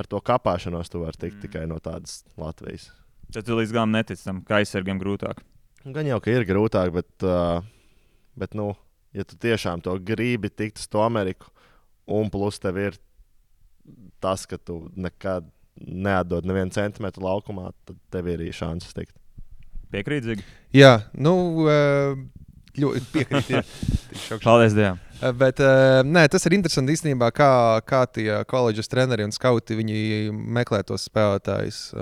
ar to kapāšanos tu vari tikt tikai no tādas Latvijas. Tad tu līdz galam netici tam, ka aizsargiem grūtāk. Gan jau, ka ir grūtāk, bet ja tu tiešām to gribi tikt uz to Ameriku, un plus tev ir tas, ka tu nekad neatdod nevienu centimetru laukumā, tad tev ir arī šansas tikt. Piekrītīgi? Jā, ļoti piekrīt. Paldies Dievam. Bet tas ir interesanti īstenībā, kā tie koledžas treneri un skauti meklē tos spēlētājus.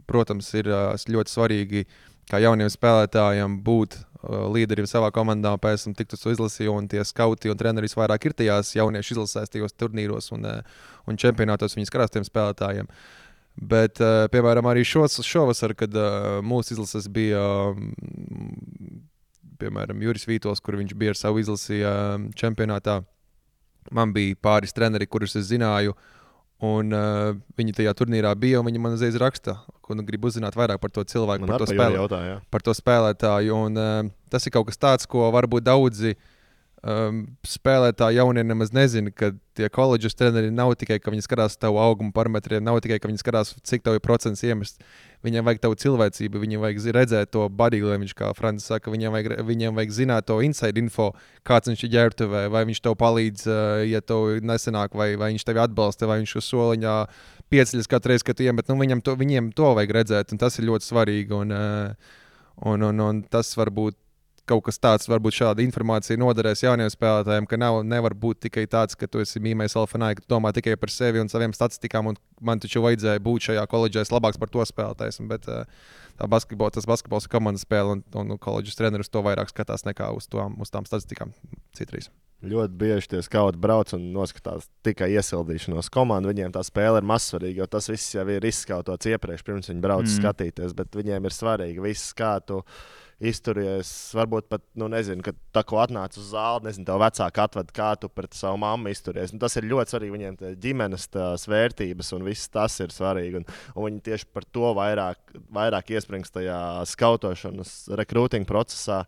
Protams, ir ļoti svarīgi, kā jauniem spēlētājiem būt līderiem savā komandā, pēc tam tikt uz izlasi, un tie skauti un treneri vairāk ir tajās jauniešu izlasēs, tajos turnīros un čempionātos viņi skatās tiem spēlētājiem. Bet, piemēram, arī šovasar, kad mūsu izlases bija piemēram, Juris Vītols, kur viņš bija ar savu izlasi čempionātā. Man bija pāris treneri, kurus es zināju, un viņi tajā turnīrā bija, un viņi man uzreiz raksta, un grib uzzināt vairāk par to cilvēku, par to spēlētāju. Un tas ir kaut kas tāds, ko varbūt daudzi spēlētāji jaunie nemaz nezina, ka tie koledžas treneri nav tikai, ka viņi skatās tavu augumu parametriem, nav tikai, ka viņi skatās, cik tev ir procents iemest. Viņiem vajag tavu cilvēcību, viņiem vajag redzēt to body language, kā Francis saka, viņiem vajag zināt to inside info, kāds viņš ir ģērbtuvē, vai viņš tev palīdz, ja tev nesenāk, vai viņš tevi atbalsta, vai viņš uz soliņā pieceļas katru reizi, kad tu iemet. Viņiem to vajag redzēt, un tas ir ļoti svarīgi, un tas varbūt kaut kas tāds, varbūt šāda informācija noderēs jauniem spēlētājiem, ka nevar būt tikai tāds, ka tu esi mīmējis alfanai, ka tu domā tikai par sevi un saviem statistikām, un man taču vajadzēja būt šajā koledžā labāks par to spēlētājs. Bet tas basketbols ir komandas spēle, un koledžas treneris to vairāk skatās nekā uz tām statistikām citreiz. Ļoti bieži tie skauti brauc un noskatās tikai iesildīšanos komandu. Viņiem tā spēle ir mazsvarīga, jo tas viss jau ir izskautots iepriekš, pirms viņi brauc skatīties, bet viņiem ir svarīgi viss, kā tu izturies, varbūt pat, nezinu, kad tā ko atnāc uz zāli, nezinu, tev vecāki atved, kā tu pret savu mammu izturies. Tas ir ļoti svarīgi, viņiem ģimenes vērtības un viss tas ir svarīgi. Un viņi tieši par to vairāk iesprings tajā skautošanas, rekrūtinga procesā.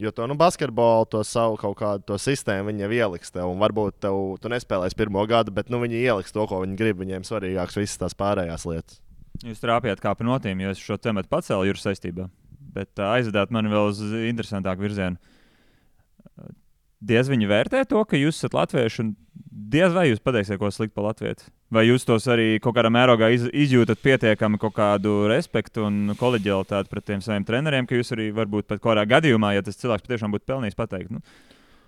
Jo to basketbolu, to savu kaut kādu to sistēmu viņi jau ieliks tev. Un varbūt tu nespēlēsi pirmo gadu, bet viņi ieliks to, ko viņi grib. Viņiem svarīgāks visas tās pārējās lietas. Jūs trāpījāt kā pa notīm, jo es šo tematu pacēlu jūras saistībā. Bet aizvedāt mani vēl uz interesantāku virzienu. Diez viņi vērtē to, ka jūs esat latvieši, un diez vai jūs pateiksiet, ko slikti par latvieti? Vai jūs tos arī kaut kādā mērogā izjūtat pietiekami kaut kādu respektu un koleģialitāti pret tiem saviem treneriem, ka jūs arī varbūt pat kādā gadījumā, ja tas cilvēks patiešām būtu pelnījis pateikt,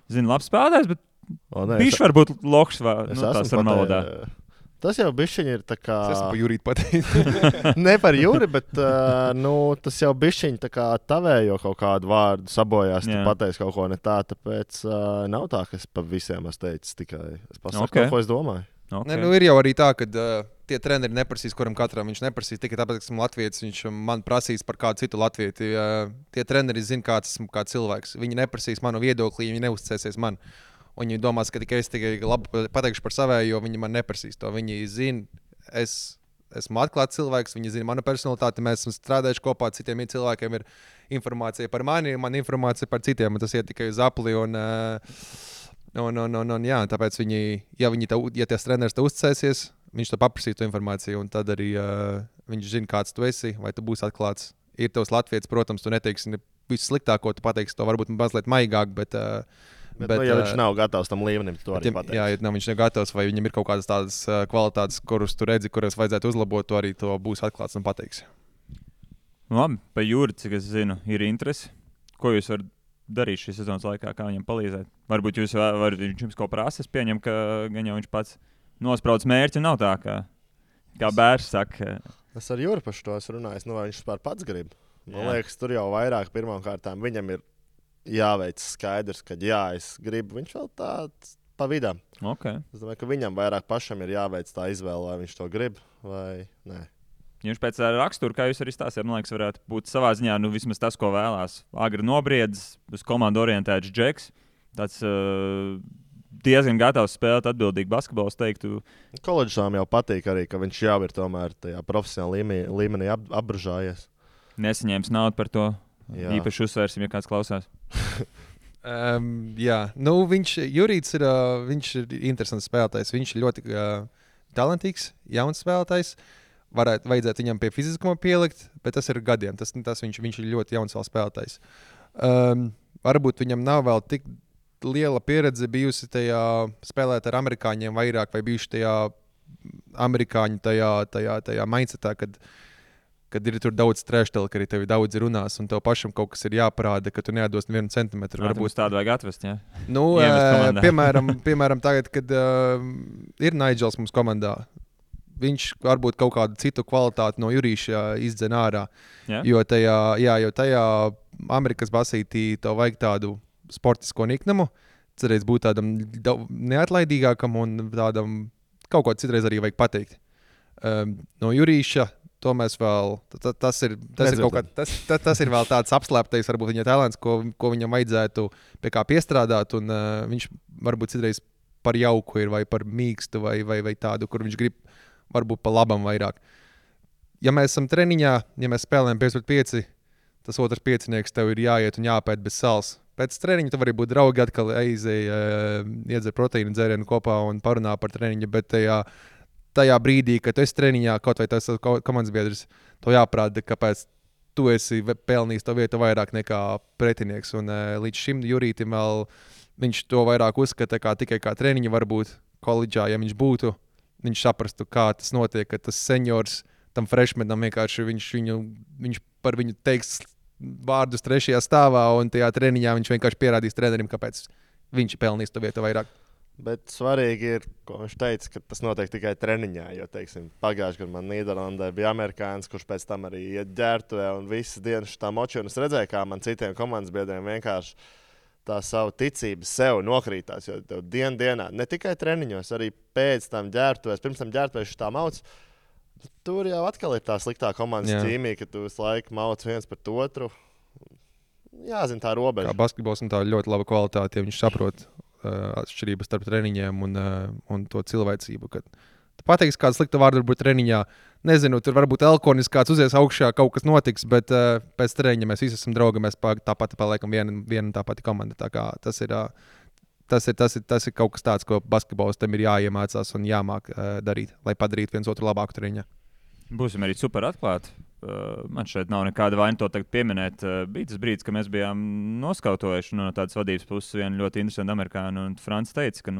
zinu, labs spēlētājs, bet bišķi varbūt loks vai tā sarunvalodā. Tas jau bišķiņi ir tā kā... Es esmu par Juriju pateikt. Ne par Juri, bet tas jau bišķiņi tā kā tavējo kaut kādu vārdu sabojās, tu pateici kaut ko ne tā, tāpēc nav tā, ka es pa visiem esmu teicis tikai. Es pasaku kaut ko es domāju. Okay. Ir jau arī tā, ka tie treneri neprasīs, kuram katram viņš neprasīs tikai tāpēc, ka esmu latvietis, viņš man prasīs par kādu citu latvieti. Tie treneri zina, kāds esmu kā cilvēks. Viņi neprasīs manu viedokli, viņi neuzticēsies man. Un viņi domās, ka es tikai labi pateikšu par savēju, jo viņi man neprasīs to. Viņi zina, es esmu atklāts cilvēks, viņi zina manu personalitāti, mēs esam strādājuši kopā, citiem cilvēkiem ir informācija par mani, man informācija par citiem, un tas iet tikai uz apli. Jā, tāpēc ja tas treneris te uzticēsies, viņš to paprasīs to informāciju, un tad arī viņš zina, kāds tu esi, vai tu būsi atklāts. Ir tavs latvietis, protams, tu neteiksi visu sliktāko, tu pateiksi to varbūt mazliet maigāk, bet ja viņš nav gatavs tam līmenim, to arī pateiks. Jā, ja viņš nav gatavs, vai viņam ir kaut kādas tādas kvalitātes, kuras tu redzi, kuras vajadzētu uzlabot, to arī to būs atklāts un pateiks. Labi, pa Juri, cik es zinu, ir interesi. Ko jūs varat darīt šīs sezonas laikā, kā viņam palīdzēt? Varbūt viņš jums kaut prasa, es pieņemu, ka gan jau viņš pats nosprauc mērķi, nav tā, kā Bērs saka. Es ar Juri pašu to esmu runājis, vai viņš vispār pats grib. Man liekas, tur jau vairāk pirmām kārtām viņam ir jāveic skaidrs, ka jā, es gribu. Viņš vēl tāds pa vidam. Okay. Es domāju, ka viņam vairāk pašam ir jāveic tā izvēle, vai viņš to grib vai nē. Viņš pēc rakstura, kā jūs arī stāstījāt, man liekas, varētu būt savā ziņā, vismaz tas, ko vēlās. Agri nobriedzis, uz komandu orientēts džeks. Tāds diezgan gatavs spēlēt atbildīgi basketbolu, es teiktu. Koledžām jau patīk arī, ka viņš jau ir tomēr tajā profesionālā līmenī apbružājies. Nesaņēmis naudu par to. Jā. Īpaši uzsvērsim, ja kāds klausās. Jā, Jurīts ir, viņš ir interesants spēlētājs. Viņš ir ļoti talantīgs, jauns spēlētājs. Vajadzētu viņam pie fiziskuma pielikt, bet tas ir gadiem. Viņš ir ļoti jauns vēl spēlētājs. Varbūt viņam nav vēl tik liela pieredze bijusi tajā spēlēt ar amerikāņiem vairāk, vai bijuši tajā amerikāņu tajā mindsetā, kad ir tur daudz trešdēļ, ka arī tevi daudz runās, un tev pašam kaut kas ir jāparāda, ka tu neatdos 1 centimetru. Varbūt tādu vajag atvest, jā? Piemēram, tagad, kad ir Nigels mums komandā, viņš varbūt kaut kādu citu kvalitāti no Jurīša izdzen ārā. Yeah. Jo tajā Amerikas basītī tev vajag tādu sportisko niknumu, cerēs būt tādam neatlaidīgākam un tādam kaut ko citreiz arī vajag pateikt. No Jurīša to mēs vēl, tas ir vēl tāds apslēptais, varbūt viņa talants, ko viņam vajadzētu pie kā piestrādāt, un viņš varbūt citreiz par jauku ir vai par mīkstu vai tādu, kur viņš grib varbūt pa labam vairāk. Ja mēs esam treniņā, ja mēs spēlējam 5-5, tas otrs piecinieks tev ir jāiet un jāpēt bez sals. Pēc treniņa tu vari būt draugi, atkal iedzer proteīnu dzērienu kopā un parunā par treniņu, bet tajā brīdī, kad tu esi treniņā, kaut vai tas komandas biedrs, to jāprāda, kāpēc tu esi pelnījis to vietu vairāk nekā pretinieks. Un līdz šim Jurītim vēl viņš to vairāk uzskata tikai kā treniņu, varbūt koledžā, ja viņš būtu. Viņš saprastu, kā tas notiek, ka tas seniors tam freshmanam vienkārši viņš par viņu teiks vārdus 3. stāvā, un tajā treniņā viņš vienkārši pierādīs trenerim, kāpēc viņš pelnīs to vietu vairāk. Bet svarīgi ir, ko viņš teica, ka tas notiek tikai treniņā. Jo, teiksim, pagājušajā gadā man Nīderlandē bija amerikānis, kurš pēc tam arī iet ģērbtuvē un visas dienas šitā močī. Un es redzēju, kā man citiem komandas biedriem vienkārši tā savu ticību sev nokrītās, jo tev dienā, ne tikai treniņos, arī pēc tam ģērbtuvēs, pirms tam ģērbtuvēs šitā mauc, tur jau atkal ir tā sliktā komandas ķīmija, ka tu visu laiku mauc viens pret otru. Jāzina tā robeža. Kā basketbols un tā ļoti laba kvalitāte, ja viņš saprot atšķirības starp treniņiem un to cilvēcību, kad tu pateiksi kādu sliktu vārdu varbūt treniņā, nezinu, tur varbūt elkonis kāds uzies augšā, kaut kas notiks, bet pēc treniņa mēs visi esam draugi, mēs tāpat paliekam viena tā pati komanda. Tā kā tas ir kaut kas tāds, ko basketbolistam ir jāiemācās un jāmāk darīt, lai padarītu viens otru labāku treniņā. Būsim arī super atklāti. Man šeit nav nekāda vaina to tagad pieminēt. Bija tas brīdis, kad mēs bijām noskautojuši no tādas vadības puses vienu ļoti interesantu amerikāņu, un Frants teica, ka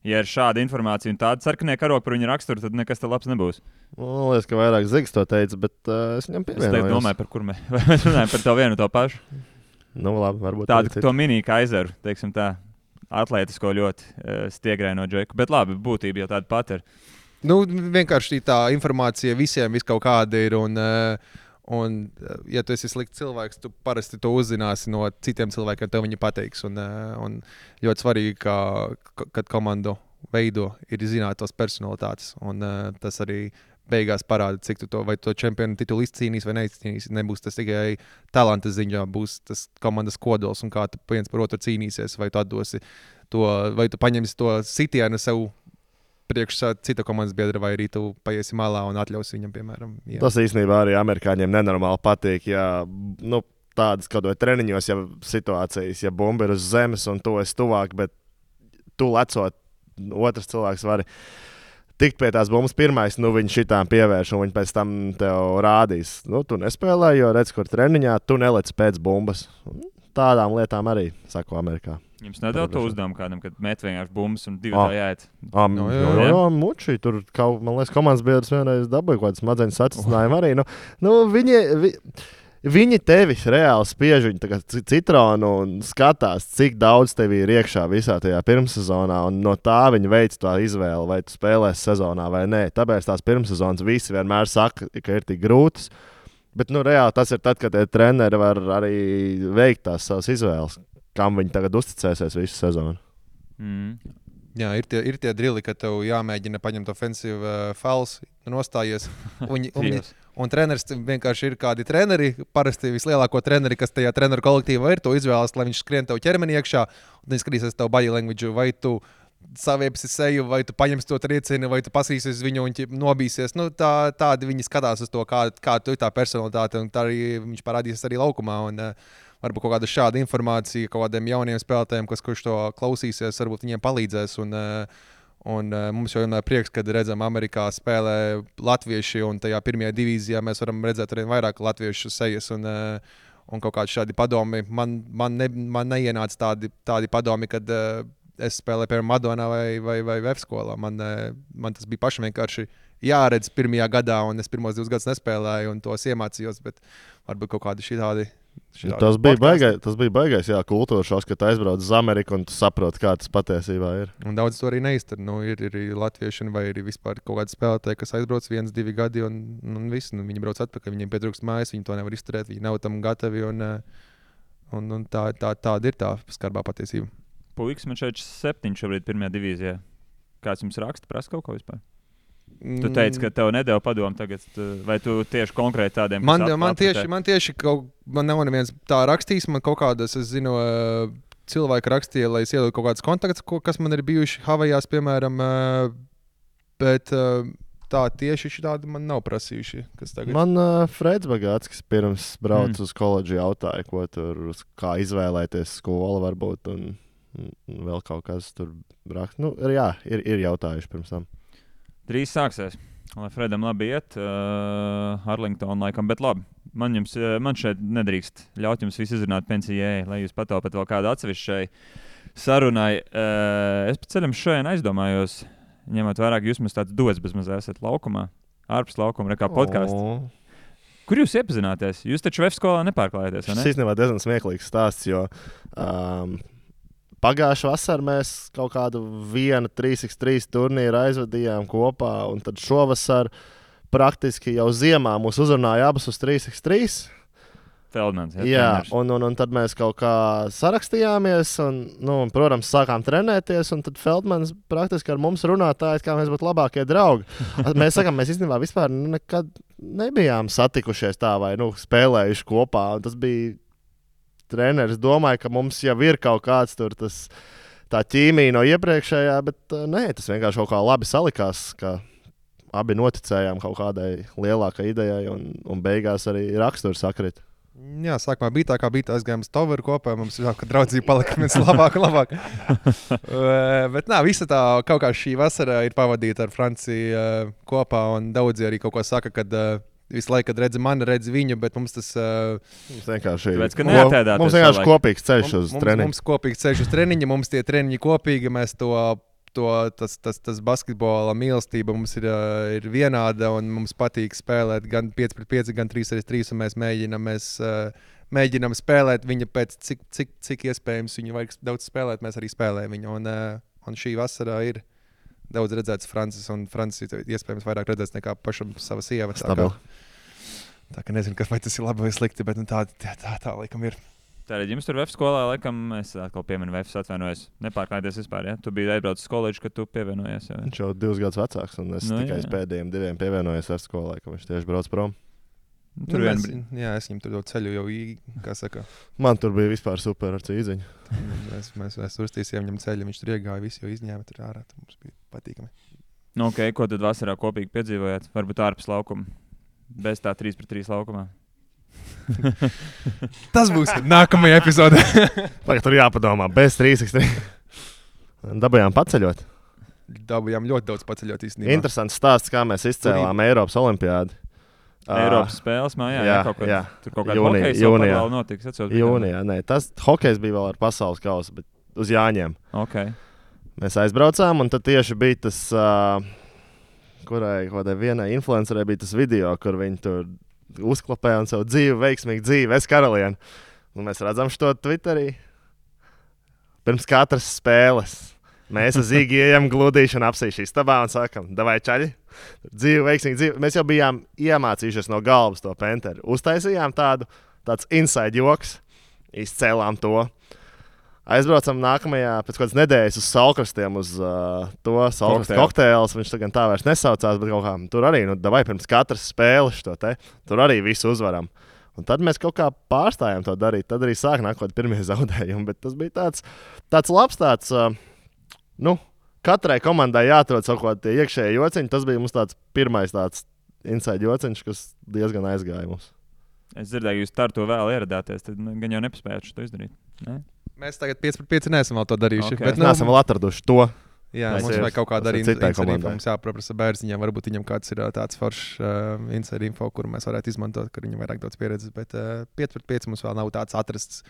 ja ir šāda informācija un tāda sarkanie karogi par viņu raksturu, tad nekas te labs nebūs. Man liekas, ka vairāk Zigs to teica, bet es viņam pievienojos. Es domāju, par kur mēs runājam par to vienu to pašu. Labi, varbūt tādu, to mini kaizeru, teiksim tā, atlētisko ļoti stiegraino džeku, bet labi, būtība jau tāda pat ir. Vienkārši tā informācija visiem kaut kāda ir, un ja tu esi slikts cilvēks, tu parasti to uzzināsi no citiem cilvēkiem, tev viņi pateiks. Un ļoti svarīgi, kad komandu veido, ir zināt tos personalitātes, un tas arī beigās parāda, cik tu vai to čempionu titulu izcīnīs vai neizcīnīs. Nebūs tas tikai talanta ziņā, būs tas komandas kodols, un kā tu viens par otru cīnīsies, vai tu atdosi to, vai tu paņemsi to sitienu sev priekš cita komandas biedra, vai arī tu paiesi malā un atļausi viņam, piemēram. Jā. Tas īstenībā arī amerikāņiem nenormāli patīk, ja tādas kaut vai treniņos, ja situācijas, ja bumba ir uz zemes un tu esi tuvāk, bet tu lecot, otrs cilvēks var tikt pie tās bumbas pirmais, viņi šitām pievērš un viņi pēc tam tev rādīs. Tu nespēlē, jo redz, kur treniņā, tu nelec pēc bumbas. Tādām lietām arī, saku Amerikā. Jums nedod to uzdevumu kādam, kad met vienkārši bumbas un divi tā jāiet? Jā, muči, tur, man liekas, komandas biedrs vienreiz dabūja kaut kādas smadzeņu sacinājumu arī. Viņi tevi reāli spiež, viņi tā kā citronu un skatās, cik daudz tev ir iekšā visā tajā pirmssezonā, un no tā viņi veic tā izvēli, vai tu spēlēsi sezonā vai nē. Tāpēc tās pirmssezonas visi vienmēr saka, ka ir tik grūtas, bet reāli tas ir tad, kad treneri var arī veikt tās savas izvēles. kam viņi tagad uzticēsies visu sezonu. Jā, ir tie drili, ka tev jāmēģina paņemt ofensīvu fouls, nostājies. Un treneris vienkārši ir kādi treneri, parasti vislielāko treneri, kas tajā treneru kolektīvā ir, to izvēlas, lai viņš skrien tev ķermeni iekšā, un viņš skatīsies tev body language, vai tu saviepsi seju, vai tu paņemsi to triecienu, vai tu pasīsies viņu un nobīsies. Nu, tādi viņi skatās uz to, kā tu ir tā personalitāte, un tā arī viņš parādīsies arī laukumā. Un, varbūt kaut kāda šāda informācija kaut kādiem jauniem spēlētājiem, kurš to klausīsies, varbūt viņiem palīdzēs. Un mums jau ir prieks, kad redzam, Amerikā spēlē latvieši, un tajā pirmajā divīzijā mēs varam redzēt arī vairāk latviešu sejas. Un kaut kādi šādi padomi. Man neienāca tādi padomi, kad es spēlēju piemēram Madonā vai F skolā. Man tas bija pašam vienkārši jāredz pirmajā gadā, un es pirmos 2 gadus nespēlēju, un tos iemācījos, bet varbūt kaut kādi šitādi. Tas bija baigais, jā, kultūra šoks, ka tu aizbrauc uz Ameriku un tu saproti, kā tas patiesībā ir. Un daudz to arī neiztur. Ir latvieši vai arī vispār kaut kādi spēlētāji, kas aizbrauc 1-2 gadi un viss. Viņi brauc atpakaļ, viņiem pietrūkst mājas, viņi to nevar izturēt, viņi nav tam gatavi. Un tāda ir tā skarbā patiesība. Puikas, man šeit 7 šobrīd pirmajā divīzijā. Kāds jums raksta, prasa kaut ko vispār? Tu teici, ka tev nedēļa padomu tagad, vai tu tieši konkrēti tādiem? Man tieši man nav neviens tā rakstījis, man kaut kādas, es zinu, cilvēki rakstīja, lai es ieliku kaut kādas kontaktus, kas man ir bijuši Havajās, piemēram, bet tā tieši šitādi man nav prasījuši. Man Freds Bagātskis pirms brauc uz koledžu jautāja, ko tur, kā izvēlēties skolu varbūt, un vēl kaut kas tur rakst. Nu, jā, ir jautājuši pirms tam. Drīz sāksies, lai Fredam labi iet, Arlington laikam, bet labi. Man šeit nedrīkst ļaut jums visu izrunāt pensijai, lai jūs pataupat vēl kādu atsevišķai sarunai. Es pa ceļam šodien aizdomājos, ņemot vairāk, jūs mums tāds dots bezmaz esat laukumā, ārpus laukuma, rekā podcasts. Kur jūs iepazināties? Jūs taču VF skolā nepārklājaties, vai ne? Šis īstenībā diezgan smieklīgs stāsts, jo pagājušā vasarā mēs kaut kādu 3x3 turnīru aizvadījām kopā, un tad šovasar praktiski jau ziemā mūs uzrunāja abas uz 3x3. Feldmans, jā, un tad mēs kaut kā sarakstījāmies, un protams, sākām trenēties, un tad Feldmans praktiski ar mums runātāji, kā mēs būtu labākie draugi. Mēs sakām, mēs īstenībā vispār nekad nebijām satikušies tā vai spēlējuši kopā, un tas bija treneris domāja, ka mums jau ir kaut kāds tur tā ķīmija no iepriekšējā, bet nē, tas vienkārši kaut kā labi salikās, ka abi noticējām kaut kādai lielākai idejai un beigās arī raksturs sakrit. Jā, sākumā bija tā, kā bija tā, aizgājām uz Toveru kopā, mums jau, ka draudzība palika viens labāk. Bet visa tā kaut kā šī vasara ir pavadīta ar Franciju kopā, un daudzi arī kaut ko saka, kad visu laiku, kad redzi viņu, bet mums tas mums vienkārši ir kopīgs ceļš uz treniņu. Mums kopīgs ceļš uz treniņu, mums tie treniņi kopīgi, mēs tas basketbola mīlestība mums ir vienāda, un mums patīk spēlēt gan 5-5, gan 3-3, un mēs mēģinām spēlēt viņu pēc cik iespējams viņu vajag daudz spēlēt, mēs arī spēlējam viņu, un šī vasarā ir daudz redzēts Francis, un Francis iespējams vairāk redzēts nekā pašam sava sieva. Tā kā nezinu, vai tas ir labi vai slikti, bet tā laikam ir. Tātad jums tur VF skolā, laikam, es atkal pieminu VF, atvainojos, nepārklājieties vispār, ja? Tu biji aizbraucis uz koledžu, kad tu pievienojies. Ja? Viņš jau 2 gadus vecāks, un es tikai uz pēdējiem 2 pievienojos VF skolā, ka viņš tieši brauc prom. Es viņam tur ceļu jau, kā saka. Man tur bija vispār super ar cīziņu. Mēs uztīsījām viņam ceļu, viņš tur iegāja, visi jau izņēma tur ārā, tur mums bija patīkami. Ok, ko tad vasarā kopīgi piedzīvojāt? Varbūt ārpus laukuma, bez tā 3-3 laukumā? Tas būs nākamajā epizodē. Tagad tur jāpadomā, bez 3x3. Dabujām paceļot. Dabujām ļoti daudz paceļot īstenībā. Interesants stāsts, kā mēs izcēlām Eiropas olimpiādi. Eiropas spēles mājā, jā. Tur kaut kāda hokejs vēl notiks. Jūnijā, nē, tas hokejs bija vēl ar pasaules kausu, bet uz Jāņiem. Okay. Mēs aizbraucām, un tad tieši bija tas, kādai vienai influencerei bija tas video, kur viņi tur uzklapēja un savu veiksmīgu dzīvi, es karalieni. Un mēs redzam šo Twitterī pirms katras spēles. Mēs ar Zīgi ejam gludīšanu apsīšu istabā un sakam, davai čaļi, dzīvi, veiksmīgi dzīvi. Mēs jau bijām iemācījušies no galvas to penteru. Uztaisījām tāds inside joks, izcēlām to. Aizbraucam nākamajā pēc kādas nedēļas uz Saulkrastiem uz to Saulkrastu kokteils. Viņš tagad tā vairs nesaucās, bet kaut kā tur arī, davai pirms katras spēles šo te, tur arī visu uzvaram. Un tad mēs kaut kā pārstājām to darīt. Tad arī sāk nākot pirmie zaudējumi, bet tas bija tāds labs katrai komandai jāatrod savu kaut kādu iekšēju jociņu. Tas bija mums tāds pirmais tāds inside jociņš, kas diezgan aizgāja mums. Es dzirdēju, jūs ar to vēl ieradāties, tad gan jau nepaspējāt to izdarīt. Ne? Mēs tagad 5-5 neesam vēl to darījuši. Okay. Bet neesam vēl atraduši to. Jā, mums vajag kaut kāda arī inside info. Mums jāpaprasa Bērziņam, varbūt viņam kāds ir tāds foršs inside info, kuru mēs varētu izmantot, kur viņam vairāk daudz pieredzes. Bet 5-5 mums vēl nav tāds atrasts,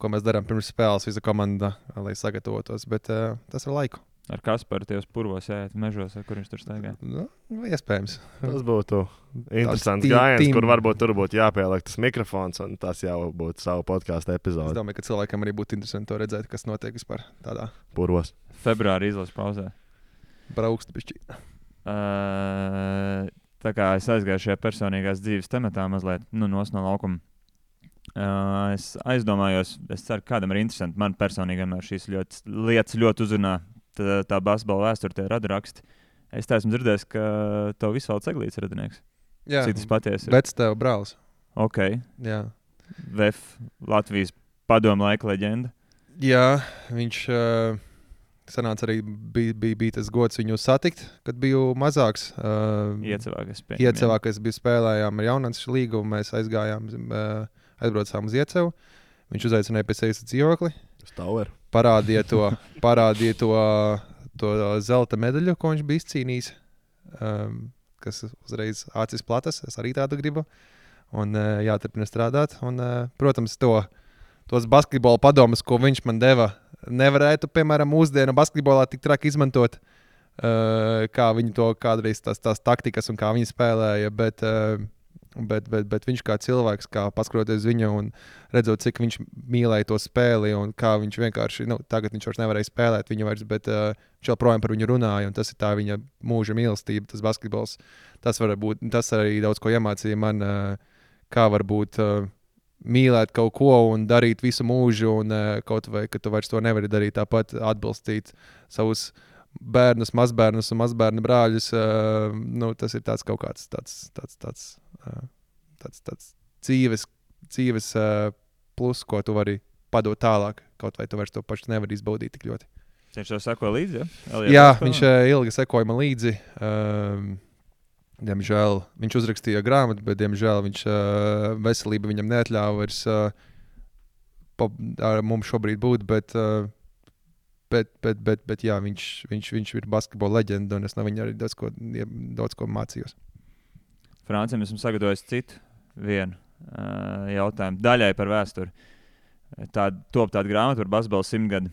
ko mēs darām pirms spēles visa komanda, lai sagatavotos. Bet tas ir laiku. Ar Kasparu tie uz purvos ejat mežos, kur viņš tur staigā? Nu, iespējams. Tas būtu interesants gājiens, kur varbūt tur būtu jāpieliek tas mikrofons, un tas jau būtu savu podkāstu epizodi. Es domāju, ka cilvēkam arī būtu interesanti to redzēt, kas notiek vispār tādā purvos. Februāri izlases pauzē. Braukst bišķi. Tā kā es aizgāju šajā personīgās dzīves tematā mazliet, no laukuma. Es aizdomājos, es ceru, kādam ir interesanti. Man personīgi vienmēr šīs lietas ļoti uzrunā. Tā basketbola vēsture, tie radraksti. Es tā esmu dzirdējis, ka tev Visvalds Eglīts ir radinieks. Jā, cik tas patiesi ir? Bets tev brālis. Ok. Jā. VF, Latvijas padomu laika leģenda. Jā, viņš sanāca arī, bija tas gods viņu satikt, kad biju mazāks. Iecevā, kas bija spēlējām ar Jaunāns līgu, mēs aizbraucām uz Iecevu. Viņš uzaicināja pie sevis dzīvokli. Parādīja to zelta medaļu, ko viņš bija izcīnījis, kas uzreiz acis platas. Es arī tādu gribu. Un jāturpina strādāt. Un, protams, tos basketbola padomus, ko viņš man deva, nevarētu, piemēram, mūsdienu basketbolā tik traki izmantot, kā viņi to kādreiz tās taktikas un kā viņi spēlēja. Bet viņš kā cilvēks, kā paskatoties viņu un redzot, cik viņš mīlēja to spēli un kā viņš vienkārši, tagad viņš vairs nevarēja spēlēt viņu vairs, bet viņš joprojām par viņu runāja un tas ir tā viņa mūža mīlestība, tas basketbols. Tas arī daudz ko iemācīja man, kā varbūt mīlēt kaut ko un darīt visu mūžu un kaut vai, ka tu vairs to nevari darīt, tāpat atbalstīt savus bērnus, mazbērnus un mazbērnu brāļus. Tas ir tāds kaut kāds tāds dzīves plus, ko tu vari padot tālāk, kaut vai tu vairs to pašu nevari izbaudīt tik ļoti. Viņš jau sekoja līdzi, ja? Jā, viņš ilgi sekoja man līdzi. Diemžēl viņš uzrakstīja grāmatu, bet diemžēl veselība viņam neatļāva vairs ar mums šobrīd būt, bet jā, viņš ir basketbola leģenda, un es no viņa arī daudz ko mācījos. Francim esmu sagatavojis citu vienu jautājumu daļai par vēsturi. Top tāda grāmata par basketbola 100 gadu,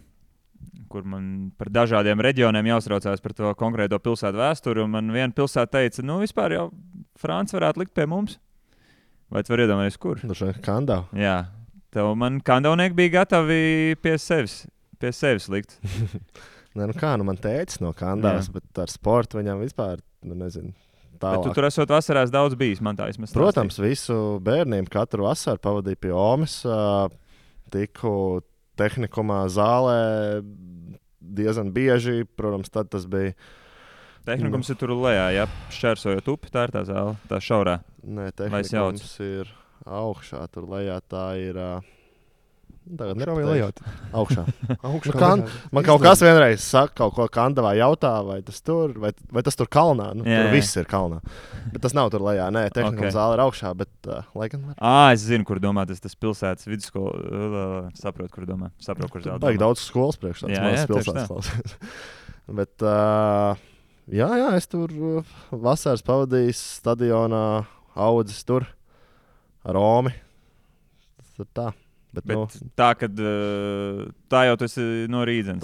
kur man par dažādiem reģioniem jāuztraucās par to konkrēto pilsētu vēsturi, un man viena pilsēta teica, vispār jau Franci varētu likt pie mums. Vai tu vari iedomāties, kur? Kandau. Jā, man kandavnieki bija gatavi pie sevis likt. Man tēcis no Kandavas, bet ar sportu viņam vispār, nezinu, tālāk. Bet tu tur esot vasarās daudz bijis, man tā vismaz stāstīja. Protams, visu bērniem katru vasaru pavadīju pie Omes, tiku tehnikumā zālē diezgan bieži, protams, tad tas bija. Tehnikums ir tur lejā, ja šķērsojot upi, tā ir tā zāle, tā šaurā. Nē, tehnikums ir augšā, tur lejā tā ir. Tagad nepateikšu. Augšā. Man kaut kas vienreiz saka, kaut ko Kandavā jautā, vai tas tur kalnā. Tur viss ir kalnā. Bet tas nav tur lejā. Nē, tehnikuma zāle ir augšā, bet laikam var. Es zinu, kur domā. Tas pilsētas vidusskola. Saprotu, kur domā. Kur zāle. Baigi daudz skolas priekš tāds mazs pilsētas. Bet, jā, es tur vasaras pavadījis stadionā, audzis tur ar Romi. Tas ir tā. Bet tā, kad tā jau tas ir no Rīdzenes.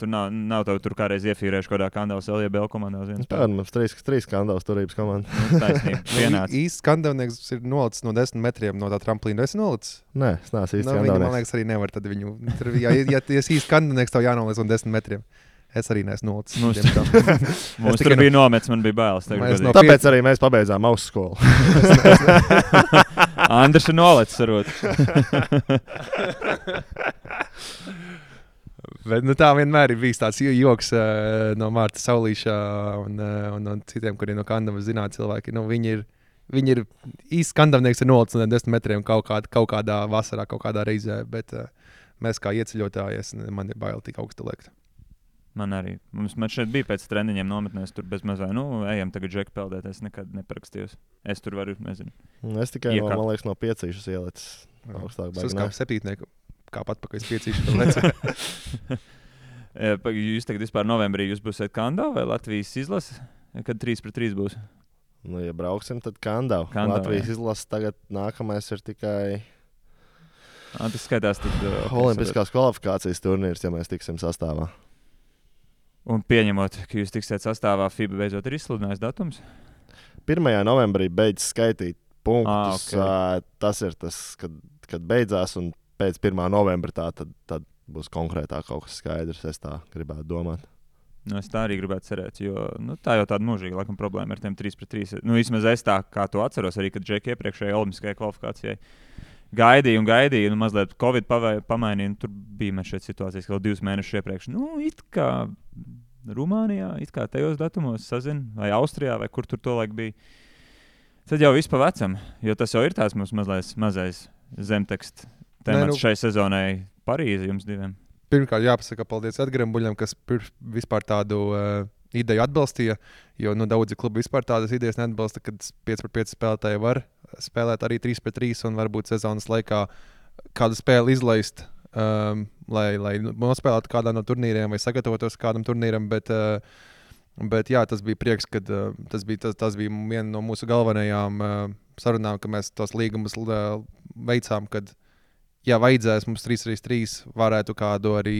Tur nav tev tur kādreiz iefīrējuši kādā Kandavas LJBL komandā uz viens. Tā mums 3 Kandavas turības komanda. Taisnība, vienāds. Īsts Kandavnieks ir nolicis no 10 metriem no tā tramplīna. Esi nolicis? Nē, es neesmu īsts Kandavnieks. Viņa, man liekas, arī nevar tad viņu. Ja esi īsts Kandavnieks, tev jānolic no 10 metriem. Es arī neesmu nolicis. Mums tur bija nomets, man bija bailes. Tāpēc arī mēs pabeidzām ausu skolu. Andris ir nolicis arot. Bet, tā vienmēr ir bijis tāds joks no Mārta Saulīša un citiem, kuriem no Kandavas zināt cilvēki. Viņi ir īsti skandavnieks ar 0,10 metriem kaut kādā vasarā, kaut kādā reizē, bet mēs kā ieceļotāji, man ir bail tik augstu liekt. Man arī. Man šeit bija pēc treniņiem nometnēs, tur bez mazā, ejam tagad džeku peldēt, es nekad neparakstījos. Es tur varu, nezinu. Es tikai, man liekas, no piecīšas ielicis augstāk. Es kā septītnieku, kā atpakaļ piecīšu. Jūs tagad vispār novembrī jūs būsiet Kandā vai Latvijas izlase? Kad 3-3 būs? Ja brauksim, tad Kandā. Latvijas izlase tagad nākamais ir tikai... Tas skaitās tad... Olimpiskās kvalifikācijas turnīrs, ja mēs tiksim sastāvā. Un pieņemot, ka jūs tiksiet sastāvā, FIBA beidzot ir izsludinājis datums? 1. novembrī beidz skaitīt punktus. Okay. Tas ir tas, kad beidzās, un pēc 1. novembra tad būs konkrētāk kaut kas skaidrs. Es tā gribētu domāt. Es tā arī gribētu cerēt, jo tā jau tāda mūžīga laikam problēma ar tiem 3-3. Vismaz es tā, kā to atceros, arī kad Džeki iepriekšējai olimpiskajai kvalifikācijai gaidīja, mazliet Covid pamainīja, tur bija mēs šeit situācijas, ka vēl 2 mēnešus iepriekš. It kā Rumānijā, it kā tajos datumos sazin, vai Austrijā, vai kur tur to laik bija. Tad jau viss pa vecam, jo tas jau ir tās mums mazais zemteksts temats šai sezonai Parīze jums diviem. Pirmkārt, jāpasaka paldies Edgaram Buļam, kas vispār tādu ideju atbalstīja, jo daudzi klubi vispār tādas idejas neatbalsta, kad 5-5 spēlētāji var spēlēt arī 3-3 un varbūt sezonas laikā kādu spēli izlaist, lai nospēlētu kādā no turnīriem vai sagatavotos kādam turnīram, bet jā, tas bija prieks, kad tas bija viena no mūsu galvenajām sarunām, ka mēs tos līgumus veicām, kad ja vajadzēs mums 3-3 varētu kādu arī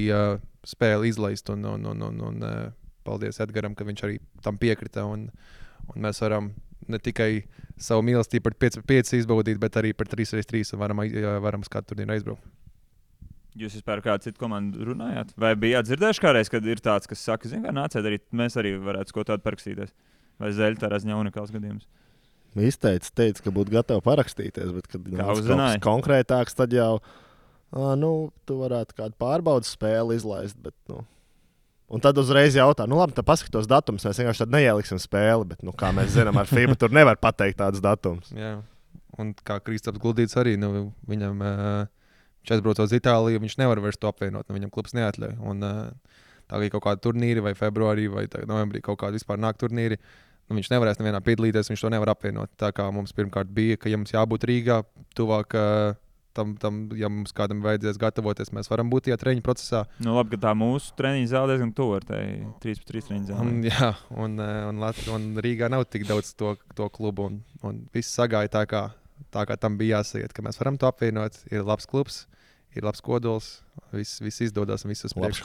spēli izlaist un paldies Edgaram, ka viņš arī tam piekrita un mēs varam ne tikai savu mīlestību par 5-5 izbaudīt, bet arī par 3-3 un varam uz kādu turnīru aizbraukt. Jūs vispār kādu citu komandu runājāt? Vai bijāt dzirdējuši kādreiz, kad ir tāds, kas saka, nāciet arī, mēs arī varētu ko tādu parakstīties? Vai Zeļa tā razņa unikāls gadījums? Teica, ka būtu gatavi parakstīties, bet kad kaut kas konkrētāks, tad jau tu varētu kādu pārbaudas spēli izlaist, bet un tad uzreiz jautā, labi, tad paskatos datumus, mēs vienkārši tad neieliksim spēli, bet, kā mēs zinām, ar FIBA tur nevar pateikt tādus datumus. Jā, un kā Kristaps Guldīts arī, viņam, viņš aizbrauc uz Itāliju, viņš nevar vairs to apvienot, viņam klubs neatļauj. Un tā kā kaut kādi turnīri vai februārī vai novembrī kaut kādi vispār nāk turnīri, viņš nevarēs nevienā piedalīties, viņš to nevar apvienot. Tā kā mums pirmkārt bija, ka ja mums jābūt Rīgā, tuvāk tam, ja mums kādam vajadzēs gatavoties, mēs varam būt tajā treniņu procesā. Labi, ka tā mūsu treniņu zāle diezgan tuvu ar tai 3-3 treniņu zāli. Jā, un Rīgā nav tik daudz to klubu, un viss sagāja tā kā tam bija jāsaiet, ka mēs varam to apvienot. Ir labs klubs, ir labs kodols, viss izdodas un viss uz priekšu.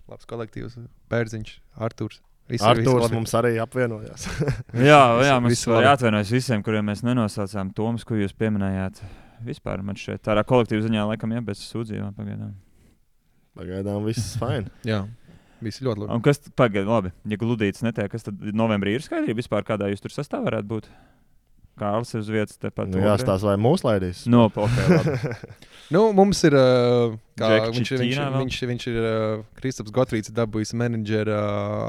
Labs kolektīvs, Bērziņš, Arturs. Arturs mums arī apvienojās. jā, mums jāatvainojas visiem, kuriem mēs nenosaucām Toms, ko jūs pieminējāt. Vispār man šeit tādā kolektīva ziņā laikam bez sūdzībām pagaidām. Pagaidām viss fine. Jā, viss ļoti labi. Un kas labi, ja Gludītis netiek, kas tad novembrī ir skaidrība vispār, kādā jūs tur sastāvā varētu būt? Kārlis ir uz vietas tepat. Jāstās vai mūs laidīs? Mums ir, viņš ir Kristaps Gotrīts dabūjis menedžera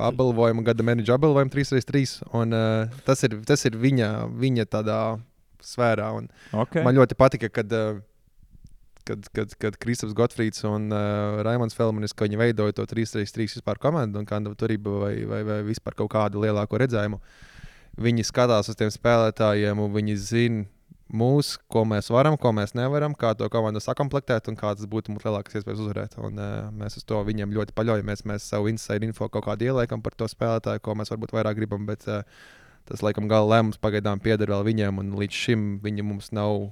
apbalvojumu, gada menedžera apbalvojumu 3x3, un tas ir viņa tādā sfērā. Man ļoti patika, kad Kristaps Gotfrīds un Raimonds Felmanis, ka viņi veidoja to 3x3 vispār komandu un kādu turību vai vispār kaut kādu lielāko redzējumu. Viņi skatās uz tiem spēlētājiem un viņi zina mūs, ko mēs varam, ko mēs nevaram, kā to komandu sakomplektēt un kādas būtu mums lielākas iespējas uzvarēt. Un mēs uz to viņiem ļoti paļaujamies. Mēs savu inside info kaut kādu ieliekam par to spēlētāju, ko mēs varbūt vairāk gribam, bet tas, laikam, gala lēmums pagaidām pieder vēl viņiem, un līdz šim viņi mums nav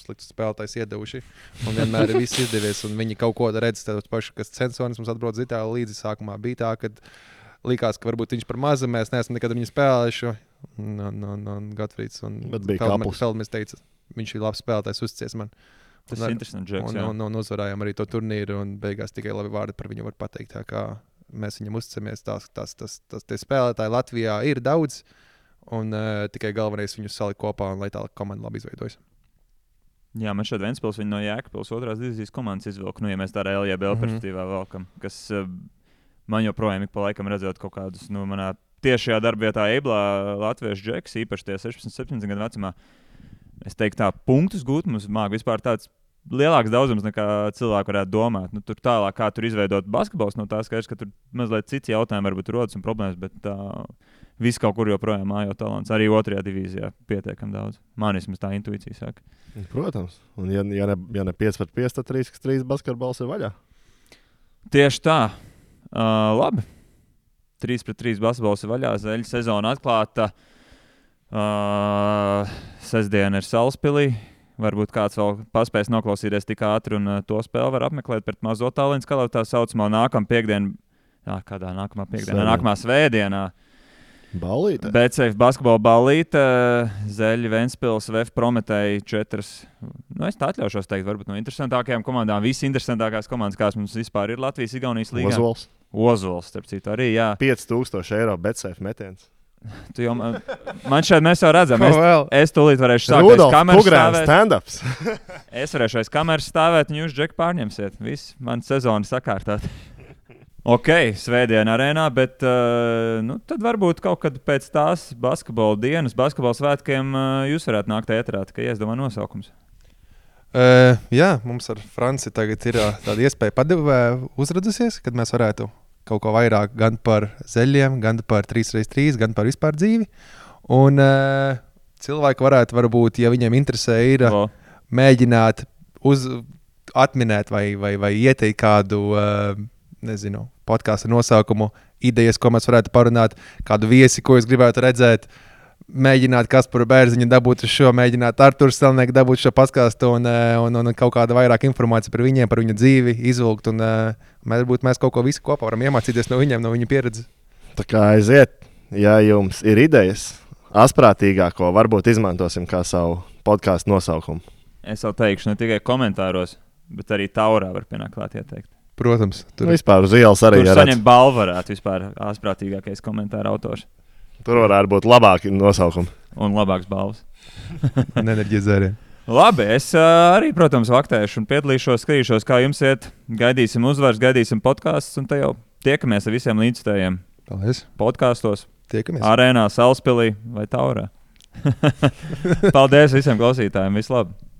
slikts spēlētājs iedevuši. Un vienmēr ir viss izdevies, un viņi kaut ko redz, tādos paši, kas Censonis mums atbrauc uz Itāliju līdzi. Sākumā bija tā, kad likās, ka varbūt viņš par mazu, mēs neesam nekad viņu spēlējuši. Un Gotfrīds un Felmanis teica, viņš ir labs spēlētājs, uzticies man. Tas ir interesants džeks, jā. Un uzvarējām arī to turnīru, un beigās tikai labi vārdi par viņu var pateikt. Tā kā mēs viņam uzticamies, tie spēlētāji Latvijā ir daudz, un tikai galvenais viņus salikt kopā, un lai tā komanda labi izveidojas. Jā, man šeit Ventspils viņa no Jēkabpils otrās divīzijas komandas izvilka. Nu, ja mēs tā LJBL perspektīvā valkam, kas man joprojām ik pa laikam redzot kaut kādus, manā tiešajā darbvietā Eiblā latviešu džeks, īpaši tie 16-17 gadu vecumā. Es teiktu tā, punktus gūt mums māk vispār tāds lielāks daudzums nekā cilvēki varētu domāt. Tur tālāk, kā tur izveidot basketbols, no tā skaidrs, ka tur mazliet cits jautājumi varbūt rodas un problēmas, bet viss kaut kur joprojām mājo talants. Arī otrajā divīzijā pietiekam daudz. Man vismaz tā intuīcija saka. Protams. Un ja ne 5-5, tad 3-3 basketbols ir vaļā. Tieši tā. Labi. 3-3 basketbols ir vaļā. Zeļa sezona atklāta. Sestdiena ir Salaspilī. Varbūt kāds vēl paspēs noklausīties tik ātri un to spēli var apmeklēt pret mazo Tallinas Kalavu tā saucamo nākamā piekdienu. Kādā nākamā piekdienā? Nākamā svētdienā. Ballīte. BCF basketbola ballīte, Zeļa, Ventspils, VF Prometēji 4. Es tā atļaušos teikt, varbūt no interesantākajām komandām. Visi interesantākās komandas, kāds mums vispār ir Latvijas Igaunijas līgā. Ozols, starp citu, arī, jā. 5000 eiro BCF metiens. Man šeit mēs jau redzam. Es tūlīt varēšu sākt aiz kameras stāvēt. Stand-ups. Es varēšu aiz kameras stāvēt un jūs, Džek, pārņemsiet. Viss, man sezona sakārtāt. Ok, svētdiena arēnā, bet tad varbūt kaut kad pēc tās basketbola dienas, basketbola svētkiem jūs varētu nākt ēterā, tikai iedomā nosaukums. Jā, mums ar Franci tagad ir tāda iespēja uzradusies, kad mēs varētu kaut ko vairāk gan par zeļiem, gan par 3x3, gan par vispār dzīvi. Un cilvēki varbūt, ja viņiem interesē, ir mēģināt atminēt vai ieteikt kādu, podkāstu nosaukumu, idejas, ko mēs varētu parunāt, kādu viesi, ko es gribētu redzēt, mēģināt Kasparu Bērziņu dabūt uz šo, mēģināt Arturu Stelnieku dabūt šo podkāstu un kaut kāda vairāk informācija par viņiem, par viņu dzīvi, izvilkt un mēs kaut ko visu kopā varam iemācīties no viņiem, no viņu pieredzes. Tā kā aiziet, ja jums ir idejas, asprātīgāko varbūt izmantosim kā savu podkāstu nosaukumu. Es vēl teikšu ne tikai komentāros, bet arī Taurā var pienākt klāt ieteikt. Protams. Vispār uz ielas arī tur saņem balvu varētu vispār asprātīgākais komentāra autors. Tur varētu būt labāki nosaukumi. Un labāks balvas. Un enerģijas dzērieni. Labi, es arī, protams, vaktēšu un piedalīšos, skatīšos, kā jums iet. Gaidīsim uzvaras, gaidīsim podkāstus un te jau tiekamies ar visiem līdzstājiem. Paldies. Podkāstos. Tiekamies. Arēnā, Salaspilī vai Taurā. Paldies visiem klausītājiem. Vislabāk!